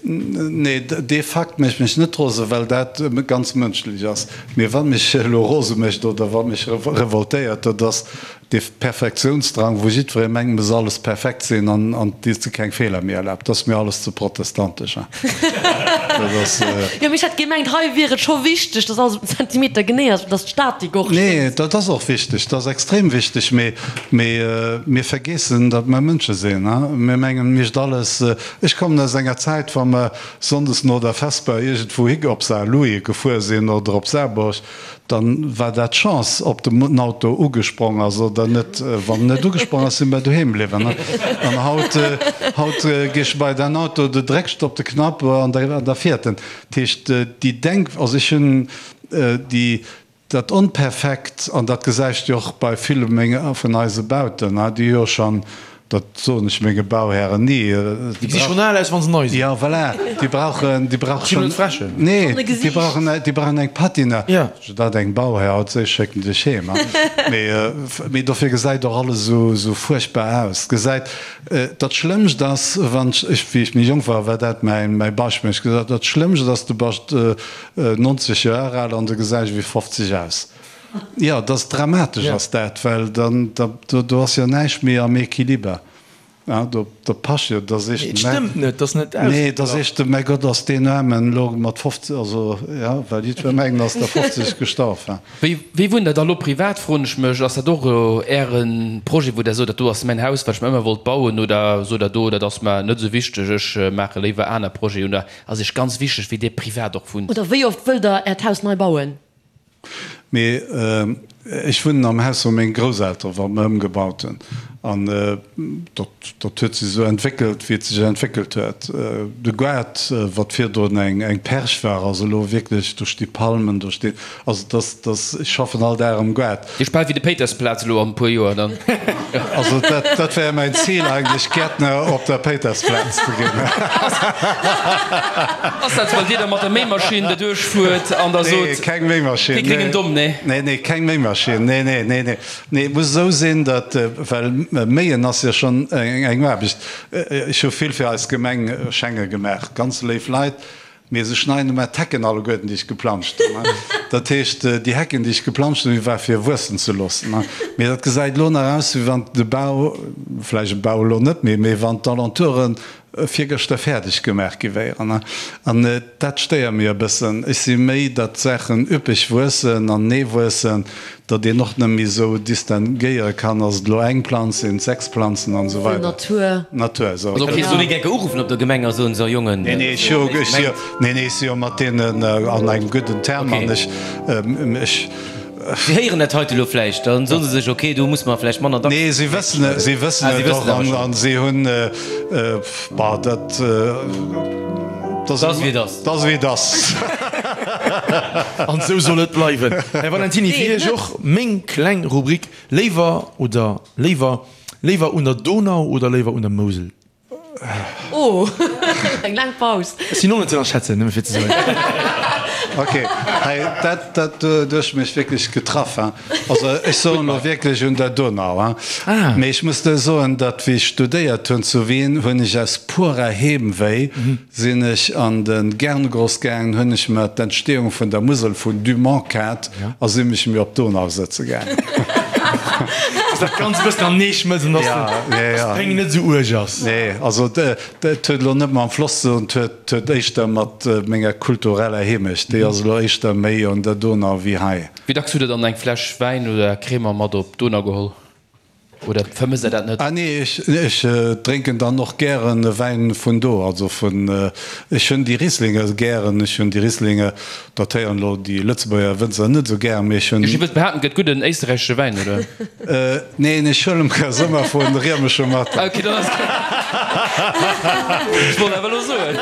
Nee, dee Fakt mécht mech net rose, well dat ganz mënschlech ass. Mee wat mech elo rose mécht oder wat mech revoltéiert, dat ass dee Perfektiounsdrang, wou jiddweree mengt, muss alles perfekt sinn an an dee sech keng Feeler méi erlaabt. Dat ass mir alles ze protestantesch. Dat ass. Jo, mee ech hätt gemengt, hei wier et scho wichteg, dass alles op den Zentimeter genee ass, dass d'Statik och stëmmt. Nee, dat ass och wichteg, dat ass extrem wichteg, mee mee mir vergeessen, datt mer Mënsche sinn. Mir mengen, et misst alles. Ech kommen aus enger Zäit, wa mer sonndes no der Vesper iergendwou hi op Saarlouis gefuer sinn oder op Saarburg, dann war dat d'Chance, ob den Auto ugesprong ass oder net. Wann en net ugesprong ass, si mer doheem bliwwen. An haut, haut gees du bei däin Auto, du drécks op de Knapp an da fiert en. Dat heescht, déi Denk, also ech hunn déi, Dat Onperfekt, an dat gesäicht jo och bei ville menger, vun eise Bauten, déi hu jo schonn, dat soen ech menge Bauhären ni, Déi gesi schonn al aus, wa se nei sinn. Jo, voilà, déi brauchen, déi brauche schonn, nee, déi brauchen, déi brauchen eng Patina. Jo. Dat engem Bauhär haut sees, schécken dech heem. Mee, mee dofir gesäit och alles esou, esou fuerchtbar aus. Gesäit, dat Schlëmmst ass, wann ech, wéi ech méi jonk war, war dat mäin, mäi Beispill, ech gesot, dat Schlëmmst ass, du bass 90 Joer al an du gesäis ewéi 50 aus. Jo, dat ass dramatesch ass dat, well dann do ass jo näischt méi am Equiliber. Do passt jo, da sees de, Et stëmmt net, dat ass net Nee, da sees de, mäi Gott, ass deen Aarmen elo mat 50, also jo, well jiddwer mengt, ass der 50 gestorf. Wéi wéi wunnt Der da lo privat, froen ech mech. Ass dat och elo Äre Projet, wou Der sot, dat do ass mäin Haus, wat ech mer ëmmer wollt bauen, oder sot Der do, dat ass mer net esou wichteg, ech maache léiwer aner Projeten, oder Ass iech ganz wichteg wéi dir privat och wunnt. Oder wéi oft wëllt der äert Haus nei bauen? Mee ech wunnen am Haus wou meng Grousseltere wat mer ëmgebaut hunn. An dat dat huet sech esou entwéckelt wéi et sech entwéckelt huet. De Gaart wat virdrun eng eng Perch war ass elo wierklech, do sti Palmen, do steet, also dass dass ech schaffen all Dag am Gaart. Dir bal wéi de Péitersplaz elo an e puer Joer dann. Also dat, dat wär mäin Zil eigentlech, Gäertner op der Péitersplaz ze ginn. Ass dat, well Dir da mat der Méimaschinn derduerch fuert an da sot. Nee, keng Méimaschinn. Kee gréngen Domm, nee? Nee, nee, keng Méimaschinn. Nee, nee, nee, nee. Nee, et muss esou sinn, datt, well Méien ass jo schonn eng Aarbecht. Ech hu vill fir eis Gemeng Schenge gemaach, ganz léif Leit. Mee se schneiden ëmmer d'Hecken alleguerten, déi ech geplanscht hunn. Dat heescht, déi Hecken, déi ech geplanscht hunn, déi war fir wuessen ze loossen. Mee dat gesäit elo nach aus, wéi wann de Bau, vläicht e Bau elo net méi, mee wann d'Alentouren virgëschter fäerdeg gemaach gi wéieren. An dat stéiert mir e bëssen. Ech si méi, datt d'Saachen üppeg wuessen an nee wuessen, Datt een och net méi esou distinguéiere kann, ass et elo eng Planz, sinn et 6 Planzen an esou weider. Natur. Natur, esou. Also ok, soll een enke uruffen op der Gemeng a soen, so Jongen. Nee, nee, ech jo, ech jo, nee, nee, ech si jo mat deenen an engem gudden Term an ech, ech. Si héieren dat heite elo vläicht, dann soen se sech, ok, do musse mer vläicht manner dacks. Nee, si wëssen et, si wëssen et och an, an si hunn, bah, dat, dat ass wéi et ass. Dat ass wéi et ass. An esou soll et bleiwen. Här Valentiny, fir Iech och meng kleng Rubrik, Léiwer oder léiwer, léiwer un der Donau oder léiwer un der Mousel? Oh, eng laang Paus. Ech sinn och net ze ënnerschätzen, nëmme fir ze soen. Ok, hei, dat, dat hues mech wierklech getraff, hein. Also ech soen elo wierklech un der Donau, hein. Mee ech muss der soen, datt wéi ech studéiert hunn zu Wien, hunn ech aus purer Heemwéi Sinn ech an de Gerngross gaangen, hunn ech mer d'Entstehung vun der Musel vun Dumont kaaft a si mech mir op d'Donau sëtze gaangen. Dass dat Ganzt e bëssen am Nee schmëlzt an dass d'Péng net esou uerg ass. Nee, also et huet elo net mam Floss ze doen, et huet éischter mat menger kultureller Heemecht, déi ass elo éischter méi un der Donau wéi hei. Wéi dacks hutt Der dann eng Fläsch Wäin oder Crémant mat op d'Donau geholl? Oder vermësst der dat net? Ah nee, ech ech drénken dann och gären e Wäin vun do, also vun, ech hunn déi Rieslinge gären, ech hunn déi Rieslinge, dat héieren elo déi Lëtzebuerger Wënzer net esou gär, mee ech hunn. Ech wëllt behaapten, et gëtt gudden éisterräichesche Wäin, oder? Neen, ech huelen mer se ëmmer vu Riemesche mat. Ah ok, dann ass gutt. Ech wollt awer elo soen.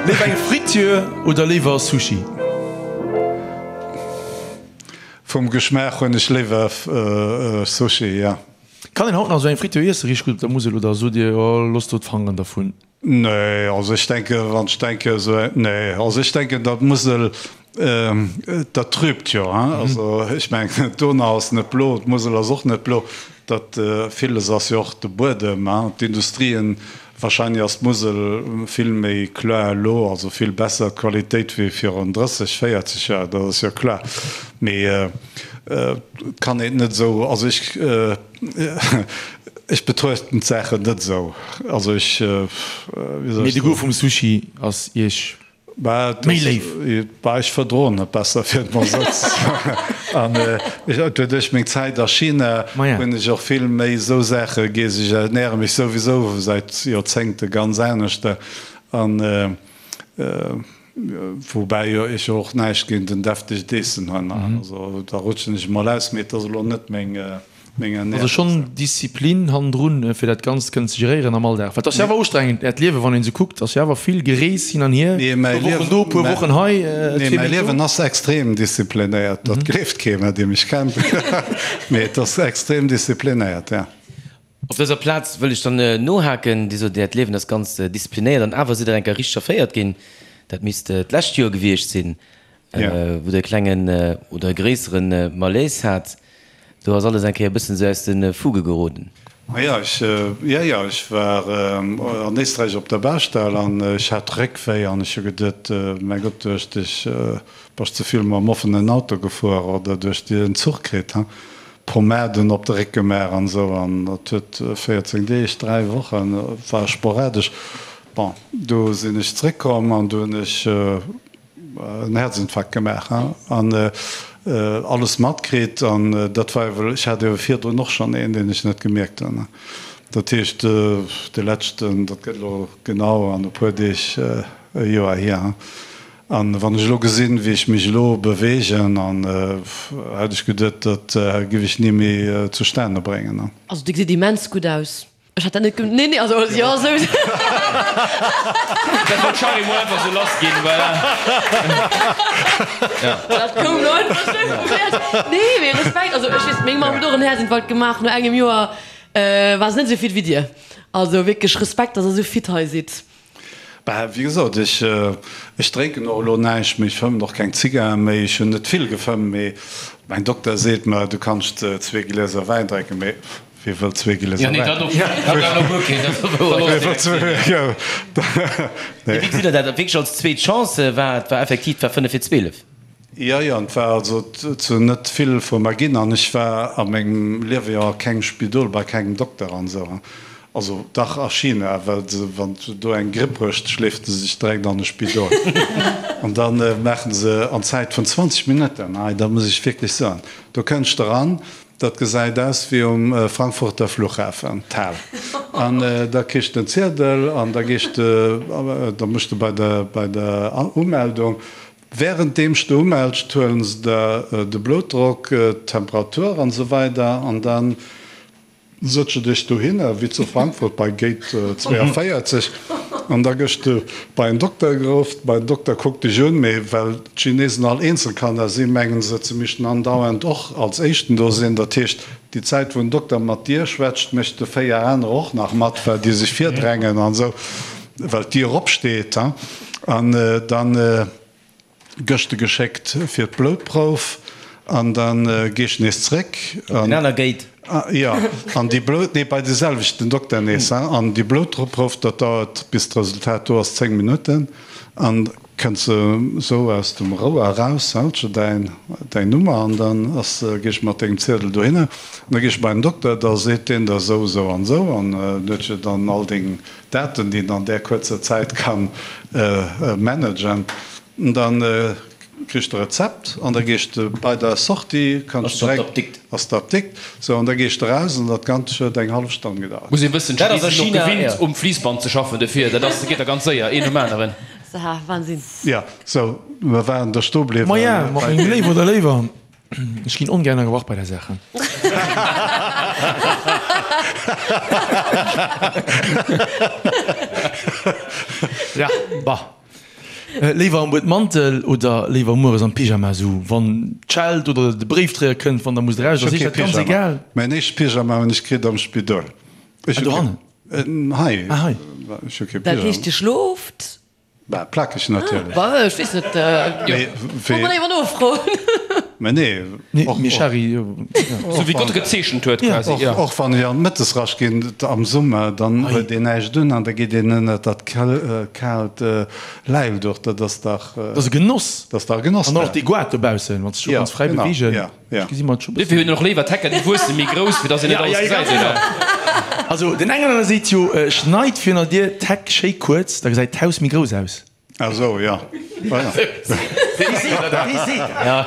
Léiwer eng Friture oder léiwer Sushi? Vum Geschmaach hunn ech léiwer Sushi, jo. Kann een haut nach esou eng Friture iessen, richteg gutt op der Musel, oder sot Dir, oh loosst do d'Fangeren dervun? Nee, also ech denken, wann ech denken esou, nee, also ech denken, datt d'Musel. Dat trübt jo, hein. Also ech mengen, d'Donau ass net blo, d'Musel ass och net blo. Dat villes ass jo och de Buedem, hein, d'Industrien. Wahrscheinlech ass d'Musel vill méi kloer elo, also vill besser d'Qualitéit wéi virun 30, 40 Joer, dat ass jo kloer. Mee et kann een et net esou, also ech, ech betruechten d'Saachen net esou. Also ech, wéi soll ech soen. Mee de Goût vum Sushi ass Iech Méi léif. Bah, ech verdroen et besser, fir et mol esou ze soen. An duerch meng Zäit a China hunn ech och vill méi esou Saache geess. Ech ernäre mech souwisou säit Joerzéngte ganz anescht. An woubäi ech jo och näischt géint en deftegt Eessen hunn. Also da rutschen ech emol aus, mee et ass elo net meng. Also schonn Disziplin hannendrun, fir dat Ganzt kënnen ze geréieren am Alldag. Well et ass jo awer ustrengend, Äert Liewen, wann een esou kuckt, ass jo awer vill Gerees hin an hier, puer Wochen do, puer Wochen hei, Nee, mäi Liewen ass extrem disziplinéiert. Dat gleeft kee mer, dee mech kennt, mee et ass extrem disziplinéiert, jo. Op dëser Plaz wëll ech dann nohaken, Dir sot, Äert Liewen ass ganz disziplinéiert an awer sidd Der eng Kéier richteg verféiert ginn. Dat misst d'lescht Joer gewiescht sinn, wou Der e klengen oder e gréissere Malaise hat. Do ass alles eng Kéier e bëssen esou aus de Fuge geroden. Jo, ech, jo, jo, ech war an Éisträich op der Baustell an ech hat Réckwéi an ech hu geduet, mäi Gott, duerch dech bass ze vill mam offenen Auto gefuer oder duerch déi en Zuch kritt, ha Pomaden op de Réck gemaach an esou an dat huet 14 Deeg, 3 Wochen, war sporadesch. Bon, du sinn ech zréckkomm an du hunn ech en Herzinfarkt gemaach an alles matkritt an dat war ewell, ech hat ewell virdrun och schonn een, deen ech net gemierkt hunn. Dat heescht, de leschten, dat gëtt elo genau an e puer Deeg e Joer hier. An wann ech elo gesinn, wéi ech mech elo beweegen, an hätt ech geduet, dat giff ech ni méi zustane bréngen. Also Dir gesitt immens gutt aus. Ech hat dat net gem-, nee, nee, also jo, esou. Dat wollt d'Shari mol einfach sou lass ginn, voilà. Dat koum lo einfach sou vum Häerz. Nee, mee Respekt, also ech weess, meng Mamm huet och en Häerzinfarkt gemaach, no engem Joer war se net esou fit wéi dir. Also wierklech Respekt, dass der esou fit hei sidd. Bah, wéi gesot, ech, ech drénken och elo näischt méi, ech fëmmen och keng Zigarre méi, ech hunn net vill gefëmmt, mee mäin Dokter seet mer, du kanns zwee Glieser Wäin drénken, mee wie wëll zwee Glieser Wäin? Wéi gesitt Der dat wierklech als zweet Chance? War et war effektiv, et war 5 vir 12. Jo, jo, et war also zu net vill vu mer ginn an ech war a mengem Liewe jo a kengem Spidol, bei kengem Dokter an esou. Also dach a China, well se, wann du do eng Gripp hues, schleeft se sech direkt an e Spidol an da maachen se an Zäit vun 20 Minutten, hei dat muss ech wierklech soen, do kënns de eran, dat gesäit aus wéi um Frankfurter Flughafen, d'Hal, an da kriss de en Ziedel an da gees de, da muss de bei der, bei der Umeldung, Währenddeems de umells, huelen se der de Bloutdrock, d'Temperatur an esou weider an dann sëtz de dech dohinner, wéi zu Frankfurt bei Gate 42, an da gëss de bei en Dokter geruff. Bei den Dokter kuckt dech un, mee well d'Chinesen all Eenzelkanner sinn, mengen se, se missten andauernd och als éischten do sinn. Dat heescht, déi Zäit wou en Dokter mat dir schwätzt, mécht de 4 anerer och nach mat, well déi sech virdrängen an esou. Well d'Dier opsteet, an dann gësch de geschéckt fir d'Bloutprouf an dann geesch nees zréck. Op den aner Gate. Jo, an déi Blout, nee, bei de selwechten Dokter nees, an déi Bloutprouf, dat dauert bis d'Resultat do ass 10 Minutten an kënns de sou aus dem Rouer eraus, häls de däin, däin Nummer an dann ass, geesch mat dengem Ziedel dohinner an da geesch bei den Dokter, da seet deen der sou, sou an sou an huet jo dann all deng Daten, déi een an där kuerzer Zäit ka managen, dann kriss de Rezept an da gees de bei der Sortie, kanns de direkt, ass d'Apdikt, sou, an da gees de raus an dat Ganzt huet eng hallef Stonn gedauert. Muss een wëssen, d'Chinesen sinn och gewinnt um Fliissband ze schaffen, dofir dat ass, geet da ganz séier, een nom aneren. Wahnsinn. Jo, sou, mer waren do stoe bliwwen. Maja, mat mengem Léiw oder Léiwer. Ech ginn ongär ënnergebrach bei der Sache. Ja, bah. Léiwer am Buedmantel oder léiwer mueres am Pyjama, sou wann d'Scheld oder de Bréifdréier kënnt, wann der musst eraus, ass iech dat ganz egal? Mäin éischte Pyjama hunn ech kritt am Spidol. Ah, dohannen? Hei. Ah, hei. Ech hu kee Pyjama. Dat heescht, Dir schlooft? Bah, plakeg natierlech. Bah, ech weess net. Mee wéi. Muss mer nofroen. Mä nee. Nee, mee Shari. Sou wéi Gott e gezeechent huet, quasi. Och, och wann ech an d'Mëttesrascht ginn am Summer, dann huet een näischt un an da geet een ënnert dat kaalt Läilduch. Dat ass dach. Dat ass e Genoss. Dat ass dach e Genoss. An och dee Goart dobaussen, wann s de scho kanns fräi beweegen. Ja, genau. Ech gesi mer et scho bëssen. Dofir hunn och léiwer d'Hecken, déi wuesse méi grouss, fir dass een net alles gesäit, oder? Also den engen oder seet jo, schneit virun der Dier d'Heck schéi kuerz, da gesäit d'Haus méi grouss aus. Ah sou, jo. Wee seet dat? Wee seet dat?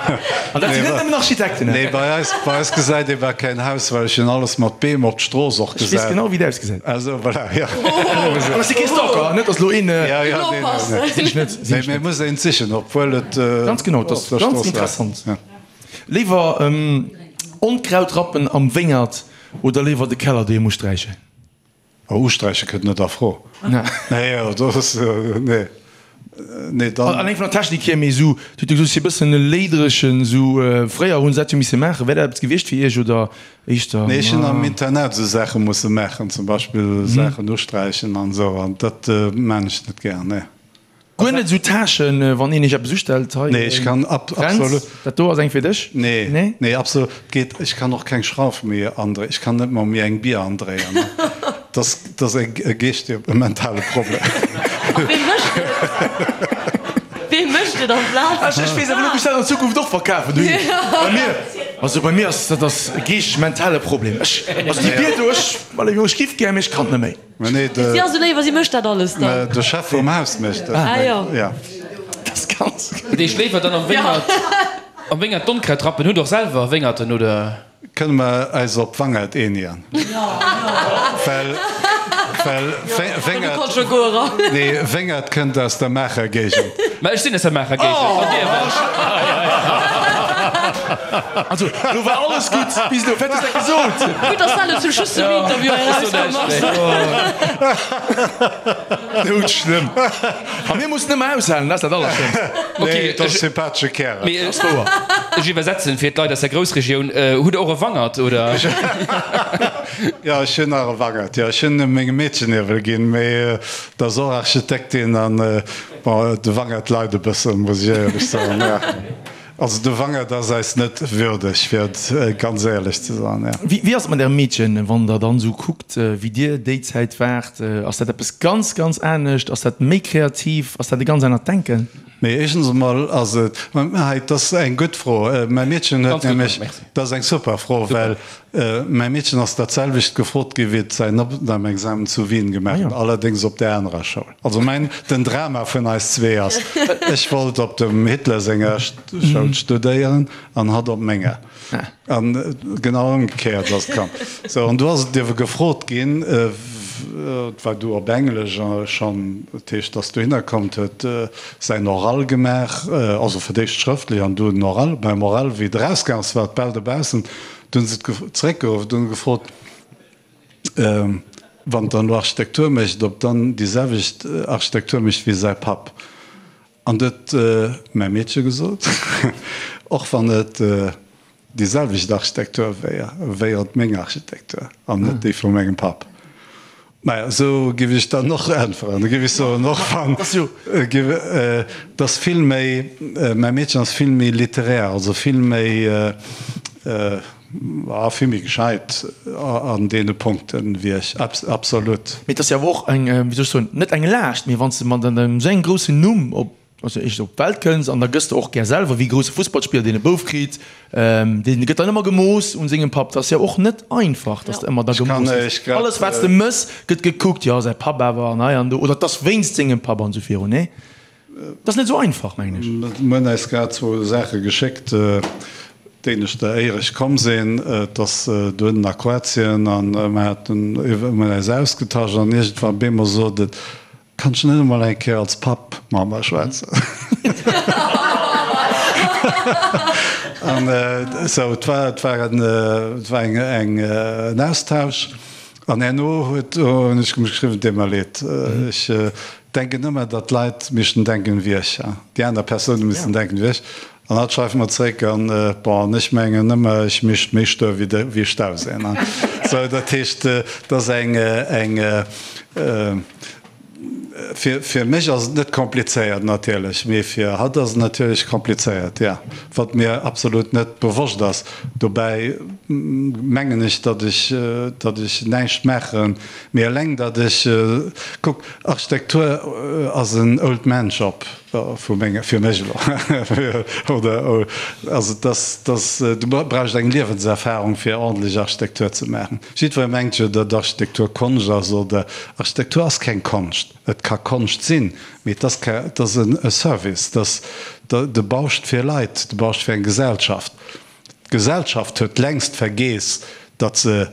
An dat sinn net nëmmen Architekten. Nee, bei eis, bei eis gesäit ee bal keen Haus, well ech hunn alles mat Beem op d'Strooss och Ech weess gesat. genau, wéi et ausgesäit. Ah sou, voilà, jo. An ech si kee Stalker, net dass elo een. Ja, ja, nee, nee, nee. Sinn ech net, sinn Nee, ech mee net. muss een sichen, obwuel et Ganz genau, op dat ass der ganz Strooss war. interessant. Ja. Léiwer Onkraut rappen am Wéngert oder léiwer de Keller doheem usträichen? Oh, usträiche kënnt net a Fro. Nee, dat ass, nee, nee, dann. Alleng vun der Technik hier, mee esou, du hutt jo gesot, si e bëssen e léidrechen, esou, fréier hunn se dat jo misse maachen. Wär dat eppes gewiescht fir Iech oder éischter? Nee, ech hunn am Internat esou Saache musse maachen, zum Beispill Saachen usträichen an esou, an dat maan ech net gär, nee. Guer net esou Tâchen, wann een iech eppes ustellt, hei, Nee, ech kann ab, Fränz, absolut. dat do ass eng fir dech? Nee, Nee? nee, absolut. Geet, ech kann och keng Schrauf méi andréien, ech kann net mol méi eng Bier andréien. Dat ass, dat ass e geeschtege, e mentale Problem. A wee mécht et? Wee mécht et amplaz? Ech, ech weess awer net, ob ech dat an Zukunft och verkafen. Du, bei mir, also bei mir ass dat ass e geeschteg-mentale Problem. Ech, also déi Bier do, ech, allez, ech giff gär, mee ech kann net méi. Mä nee, de. Si ass esou léif a si mécht dat alles dann. De Chef vum Haus mécht dat. Ah jo. Ja. Dat ass ganz. Dat heescht léiwer dann am Wéngert, am Wéngert d'Onkraut rappen. Hutt och selwer Wéngerten, oder? Kënne mer äis op Wangert eenigen? Well, well Wéngert, nee, Wéngert kënnt aus der Maacher Géigend. Mä ech sinn aus der Maacher Géigend. An Dir wat? Also, lo war alles gutt bis elo. Wat hues de gesot? Gutt, dass dat elo zum Schluss vum Interview hei erauskomm ass. Doudschlëmm. A mir mussen ëmmer aushalen, dat ass dat Allerschlëmmst. Nee, dat ass sympathesche Kärel. Mee ech iwwersetzen fir d'Leit aus der Groussregioun, Hutt Der och e Wangert, oder? Jo, ech hunn nach e Wangert, jo. Ech hunn e mengem Meedchen iewel ginn, mee dat ass och Architektin an, bon, de Wangert leit e bëssen, muss ech éierlech soen, jo. Also de Wangert ass eis net würdeg, fir et ganz éierlech ze soen, jo. Wéi ass et mat Ärem Meedchen, wann Der dann esou kuckt, wéi Dir déi Zäit waart? Ass dat eppes ganz, ganz anescht? Ass dat méi kreativ? Ass dat e ganz anert Denken? Mee éischtens emol ass et, hei, dat ass eng gutt Fro. Mäi Meedchen huet nämlech, dat ass eng super Fro, well mäi Meedchen ass dat selwecht gefrot gi wéi et säin Opnamexamen zu Wien gemaach huet, allerdéngs op där anerer Schoul. Also mäin, den Drama vun eis zwee ass, ech wollt op dem Hitler senger Schoul studéieren an hatt op menger. An genau ëmgekéiert ass et komm. Sou, an du ass et iewe gefrot ginn, et war du op Englesch schonn, dat heescht, ass dohinner komm, huet säin Oral gemaach, also fir d'éischt schrëftlech an du den Oral. Beim Oral, wéi et erausgaang ass, war et bal dobaussen, du hunn se et zeréckgeruff, du hunn gefrot, Wann dann elo Architektur mécht, ob dann déi selwecht Architektur mécht wéi säi Papp. An du huet mäi Meedche gesot, och wann et déi selwecht Architektur wéier, wéier et meng Architektur an net déi vu mengem Papp. Maja, esou giff ech dann och äntweren. Da giff ech soen, och wann, giff, et ass vill méi, mäi Meedchen ass vill méi littéraire, also vill méi, Ah, vill méi gescheit an deene Punkten wéi ech, absolut. Mee et ass jo awer och eng, wéi soll ech soen, net eng Laascht, mee wann s de mat engem esou engem groussen Numm op, also éischtens op d'Welt kënns an da gëss de och gär selwer wéi e grousse Fussballspiller, deen e Bouf kritt, dee gëtt dann ëmmer gemooss un sengem Papp. Dat ass jo och net einfach, dass de ëmmer da gemooss gëss. Alles wat s de mëss, gëtt gekuckt, jo säi Papp awer an hei an do, oder et ass wéinst sengem Papp an esou virun, nee? Dat ass net esou einfach, mengen ech. Mir hunn eis grad zwou Saache geschéckt, d'éineschter éier ech komm sinn, et ass dohinnen a Kroatien, a mer haten, mir hunn eis ausgetasch an iergendwann op eemol sot et, Kann ech net emol eng Kéier als Papp mat mer schwätzen? An esou, et war, et war en, et war eng, eng, en Austausch. An herno huet, hunn ech geschriwwen, et deet mer leed, ech denken ëmmer, datt d'Leit missten denken wéi ech, déi aner Persoune missten denken wéi ech. An hatt schreift mer zréck, an bon, an ech mengen ëmmer, ech mischt méi stur wéi de, wéi Stauséi. Sou, dat heescht, et ass eng, eng. Fir mech ass et net komplizéiert natierlech, mee fir hatt ass et natierlech komplizéiert, jo, wat mir absolut net bewosst ass. Dobäi mengen ech, datt ech, datt ech näischt maachen, mee eleng datt ech, kuck, Architektur ass en Old Man Job vu menge, fir mech elo, oder, also et ass, et ass, du brauchst eng Liewenserfahrung fir ordentlech Architektur ze maachen. Jiddweree mengt jo, datt Architektur Konscht ass, oder Architektur ass keng Konscht. Et ka Konscht sinn, mee et ass ke, et ass e Service, et ass, de bauscht fir Leit, de bauscht fir eng Gesellschaft. D'Gesellschaft huet längst vergeess, datt se,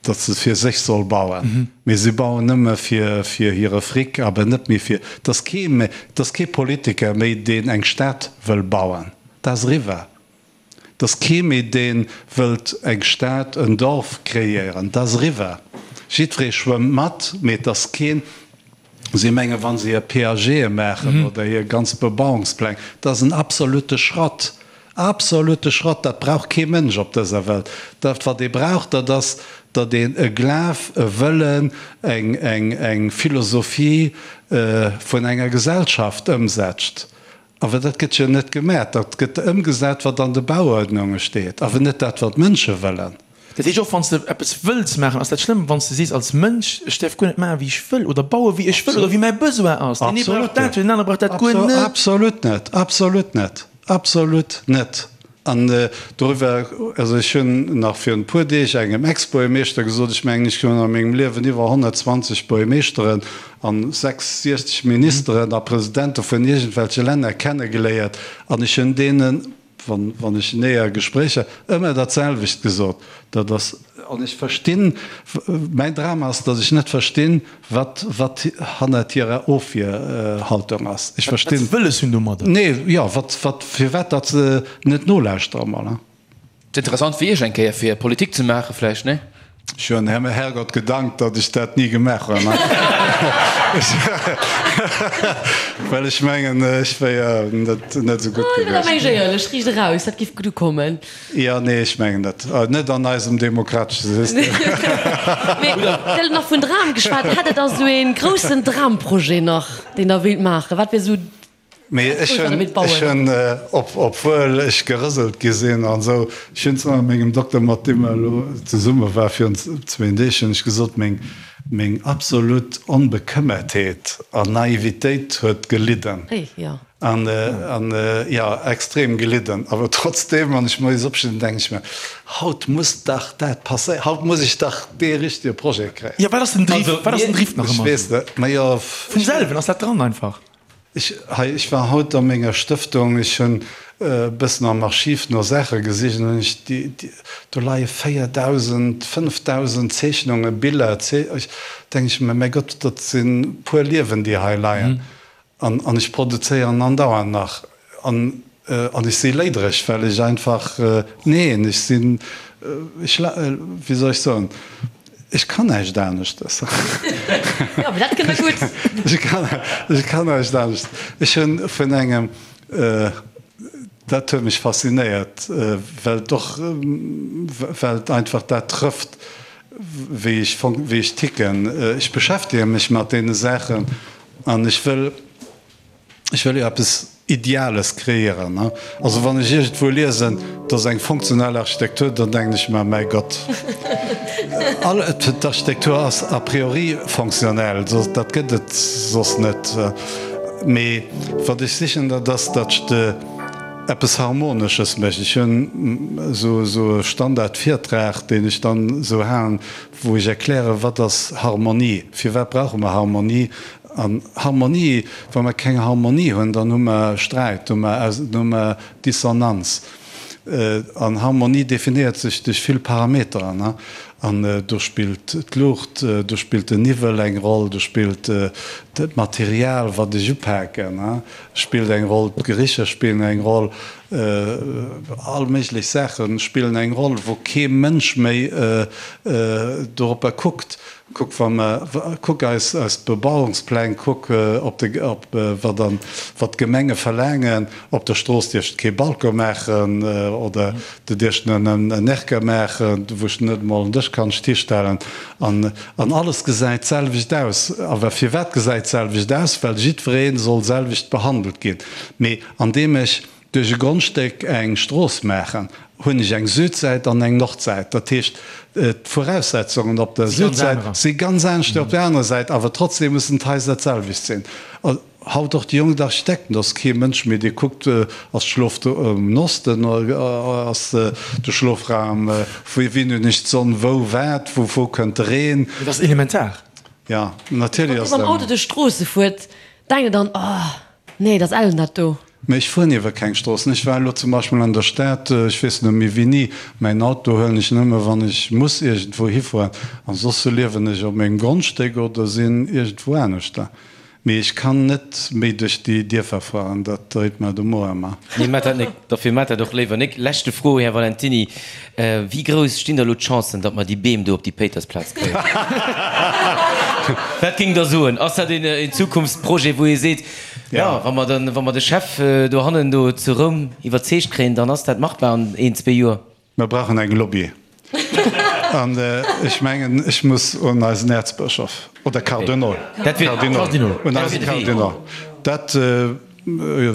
datt se fir sech soll bauen, mee si bauen nëmme fir, fir hire Fric, awer net méi fir, et ass kee méi, et ass kee Politiker méi, deen eng Stad wëll bauen. Dat ass eriwwer. Et ass kee méi deen wëllt eng Stad, en Dorf kreéieren. Dat ass eriwwer. Jiddweree schwëmmt mat, mee et ass keen, si mengen, wa se hir PAGe maachen oder hir ganz Bebauungspläng, dat ass en absolute Schrott. Absolute Schrott! Dat brauch kee Mënsch op dëser Welt. Dat wat ee brauch, dat ass, datt een e Glaf, e Wëllen, eng, eng, eng Philosophie vun enger Gesellschaft ëmsetzt. Awer dat gëtt jo net gemat. Dat gëtt ëmgesat, wat an de Bauuerdnunge steet, awer net dat, wat d'Mënsche wëllen. Dat heescht, och wann s de eppes wëlls maachen, ass dat schlëmm, wann s de sees als Mënsch, ech däerf guer net maachen, wéi ech wëll oder baue wéi ech wëll oder wéi mäi Besoin ass. Deen ee brauch dat, deen anere brauch dat guer net. Absolut net, absolut net, absolut net. An doriwwer, also ech hunn nach virun e puer Deeg engem Ex-Buergermeeschter gesot, ech mengen, ech hunn a mengem Liewen iwwer 120 Buergermeeschteren an 66 Ministeren a Presidente vun iergendwelche Länner kennegeléiert an ech hunn deenen, wann, wann ech näher Gespréicher, ëmmer dat selwecht gesot, dat ass, an ech verstinn, mäin Dram ass, datt ech net verstinn, Wat, wat hannert hirer Ofwierhaltung ass. Ech verstinn. Wat se wëlles hunn domadder. Nee, jo, wat, wat, firwat datt se net nolauschtere mol, hein? Et interessant fir Iech eng Kéier fir Politik ze maachen vläicht, nee? Ech hunn dem Herrgott gedankt, datt ech dat ni gemaach hunn, well ech mengen, ech wéier net, net esou gutt gewiescht. Meng ech éierlech, riicht eraus, dat giff gutt ukommen. Jo, nee, ech mengen net. Net an eisem demokratesche System. Mee Dir hutt nach vun Dram geschwat. Hätt Der da esou ee groussen Dramprojet nach, deen Der wéilt maachen? Wat wier esou Mee ech hunn, ech hunn, obwuel ech gerëselt gi sinn an esou, ech hunn zwar mengem Dokter, mat deem mer elo zesumme war virun zwéin Deeg, hunn ech gesot, meng, meng absolut Onbekëmmertheet an Naivitéit huet gelidden. An, an, jo, extrem gelidden. Awer trotzdeem, wann ech moies opstinn, denken ech mir, Haut muss dach dat passéieren, haut muss ech dach dee richtege Projet kréien. Jo, wat ass den Driff, wat ass den Driff nach ëmmer esou? Ech weess net, ma jo. Vum selwen ass dat dran einfach. Ech, hei, ech war haut a menger Stëftung, ech hunn e bëssen am Archiv no Saache gesicht an hunn ech déi, déi, do leie 4.000, 5.000 Zeechnungen, Biller, ech, denke ech mir, mäi Gott, dat sinn puer Liewen, déi hei leien. An an ech produzéieren andauernd nach. An an ech si léidereg, well ech einfach, neen, ech sinn, ech, wéi soll ech soen, ech kann näischt aneschtes. Jo, mee dat kënnt der gutt. Ech kann, ech kann näischt anescht. Ech hunn vun engem, dat huet mech faszinéiert, well et och, well et einfach dat trëfft, wéi ech, wéi ech ticken. Ech beschäftege mech mat deene Saachen. An ech wëll, ech wëll jo eppes Ideales kreéieren. Also wann ech iergendwou liesen, et ass eng funktionell Architektur, dann denken ech mer, mäi Gott, all, d'Architektur ass a priori fonctionnel, dat gëtt et soss net. Mee wat ech sichen, dat ass, datt ech de eppes Harmonesches mécht. Ech hunn esou e Standardvirtrag, deen ech dann esou halen, wou ech erklären, wat ass Harmonie, firwat brauche mer Harmonie. An Harmonie, wa mer keng Harmonie hunn, dann hu mer Sträit, hu mer, hu mer Dissonanz. An Harmonie definéiert sech duerch vill Parameteren. An do spillt d'Luucht, do spillt den Niwwel eng Roll, do spillt d'Material, wat ech upaken, spillt eng Roll, d'Gericher spillen eng Roll. All méiglech Saache spillen eng Roll, wou kee Mënsch méi doropper kuckt. Kuck, wa mer, kuck eis eis Bebauungspläng, kuck op de, op wat an, wat d'Gemenge verlaangen. Op der Strooss dierfs de kee Balcon maachen oder du dierfs nëmmen en Erker maachen, wou s de net emol en Dësch. Dësch kann ech d'histellen an an alles gesäit d'selwecht aus. Awer firwat gesäit d'selwecht aus? Well jiddweree soll selwecht behandelt ginn. Mee andeem ech duerch e Grondstéck eng Strooss maachen, hunn ech eng Südsäit an eng Nordsäit. Dat heescht, d'Voraussetzungen op der Südsäit si ganz anescht wéi op der anerer Säit, awer trotzdem mussen d'Haiser d'selwecht sinn. Haut och déi jonk Architekten, do ass kee Mënsch méi, dee kuckt, ass d'Schlof um Osten, ass de Schlofraum, vu wien hunn ech d'Sonn, wou wat, vu wou kënnt de Reen. Dat ass elementar. Jo, natierlech ass dat. Wann Dir mam Auto duerch d'Stroosse fuert, denkt Der dann, Oh, nee, dat ass ellen dat do. Mä ech fueren iwwer keng Stroossen. Ech war elo zum Beispill an der Stad, ech weess net méi wéini. Mäin Auto huelen ech nëmme wann ech muss iergendwou hifueren. An soss liewen ech op mengem Grondstéck oder sinn iergendwou aneschter. Mee ech kann net méi duerch déi Dierfer fueren, dat dréit mer de Mo ëmmer. Nee, maat dat nik. Dofir maat dat och léiwer nik. Leschte Fro, Här Valentiny, Wéi grouss stinn da lo d'Chancen, datt mer déi Beem do op déi Péitersplaz kréien? Wat géingt Der soen? Ass dat een Zukunftsprojet, wou ee seet, jo, wa mer den, wa mer de Chef dohannen do zu Roum iwwerzeegt kréien, dann ass dat machbar an een, zwee Joer? Mer brauchen eng Lobby. An ech mengen, ech muss un eisen Äerzbëschof oder Kardinol, Kardinol, un eise Kardinol. Dat,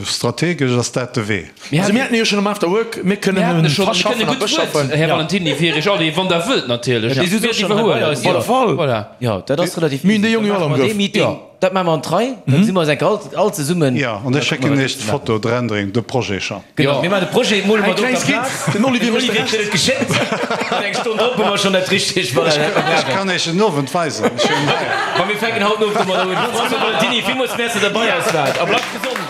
strategesch ass dat de Wee. Also mir haten e jo schonn am After Work, mir kënnen e verschaffen a beschaffen. Här Valentiny, fir Iech all, wann Der wëllt natierlech, mir iwwerhuelen. Op alle Fall. Voilà. Jo, dat ass relativ easy. Mir hunn déi Jongen jo all am Grëff. Dat maache mer an d'Rei, da gesi mer eis enk all, all zesummen. Jo, an ech schécken Iech d'Foto, d'Rendering, de Projet schonn. Genau, mir maachen de Projet, mole mer do op der Plaz. Den Olivier mécht de Rescht. Den Olivier kritt et geschéckt an eng Stonn drop hu mer schonn dat richtegt. Voilà, dat mer Ech kann Iech en Owend weisen, ech hunn hei. Ma mir fänken haut den Owend domadder un. François Valentiny, villmools Merci, datt Der bei eis waart a bleift gesond!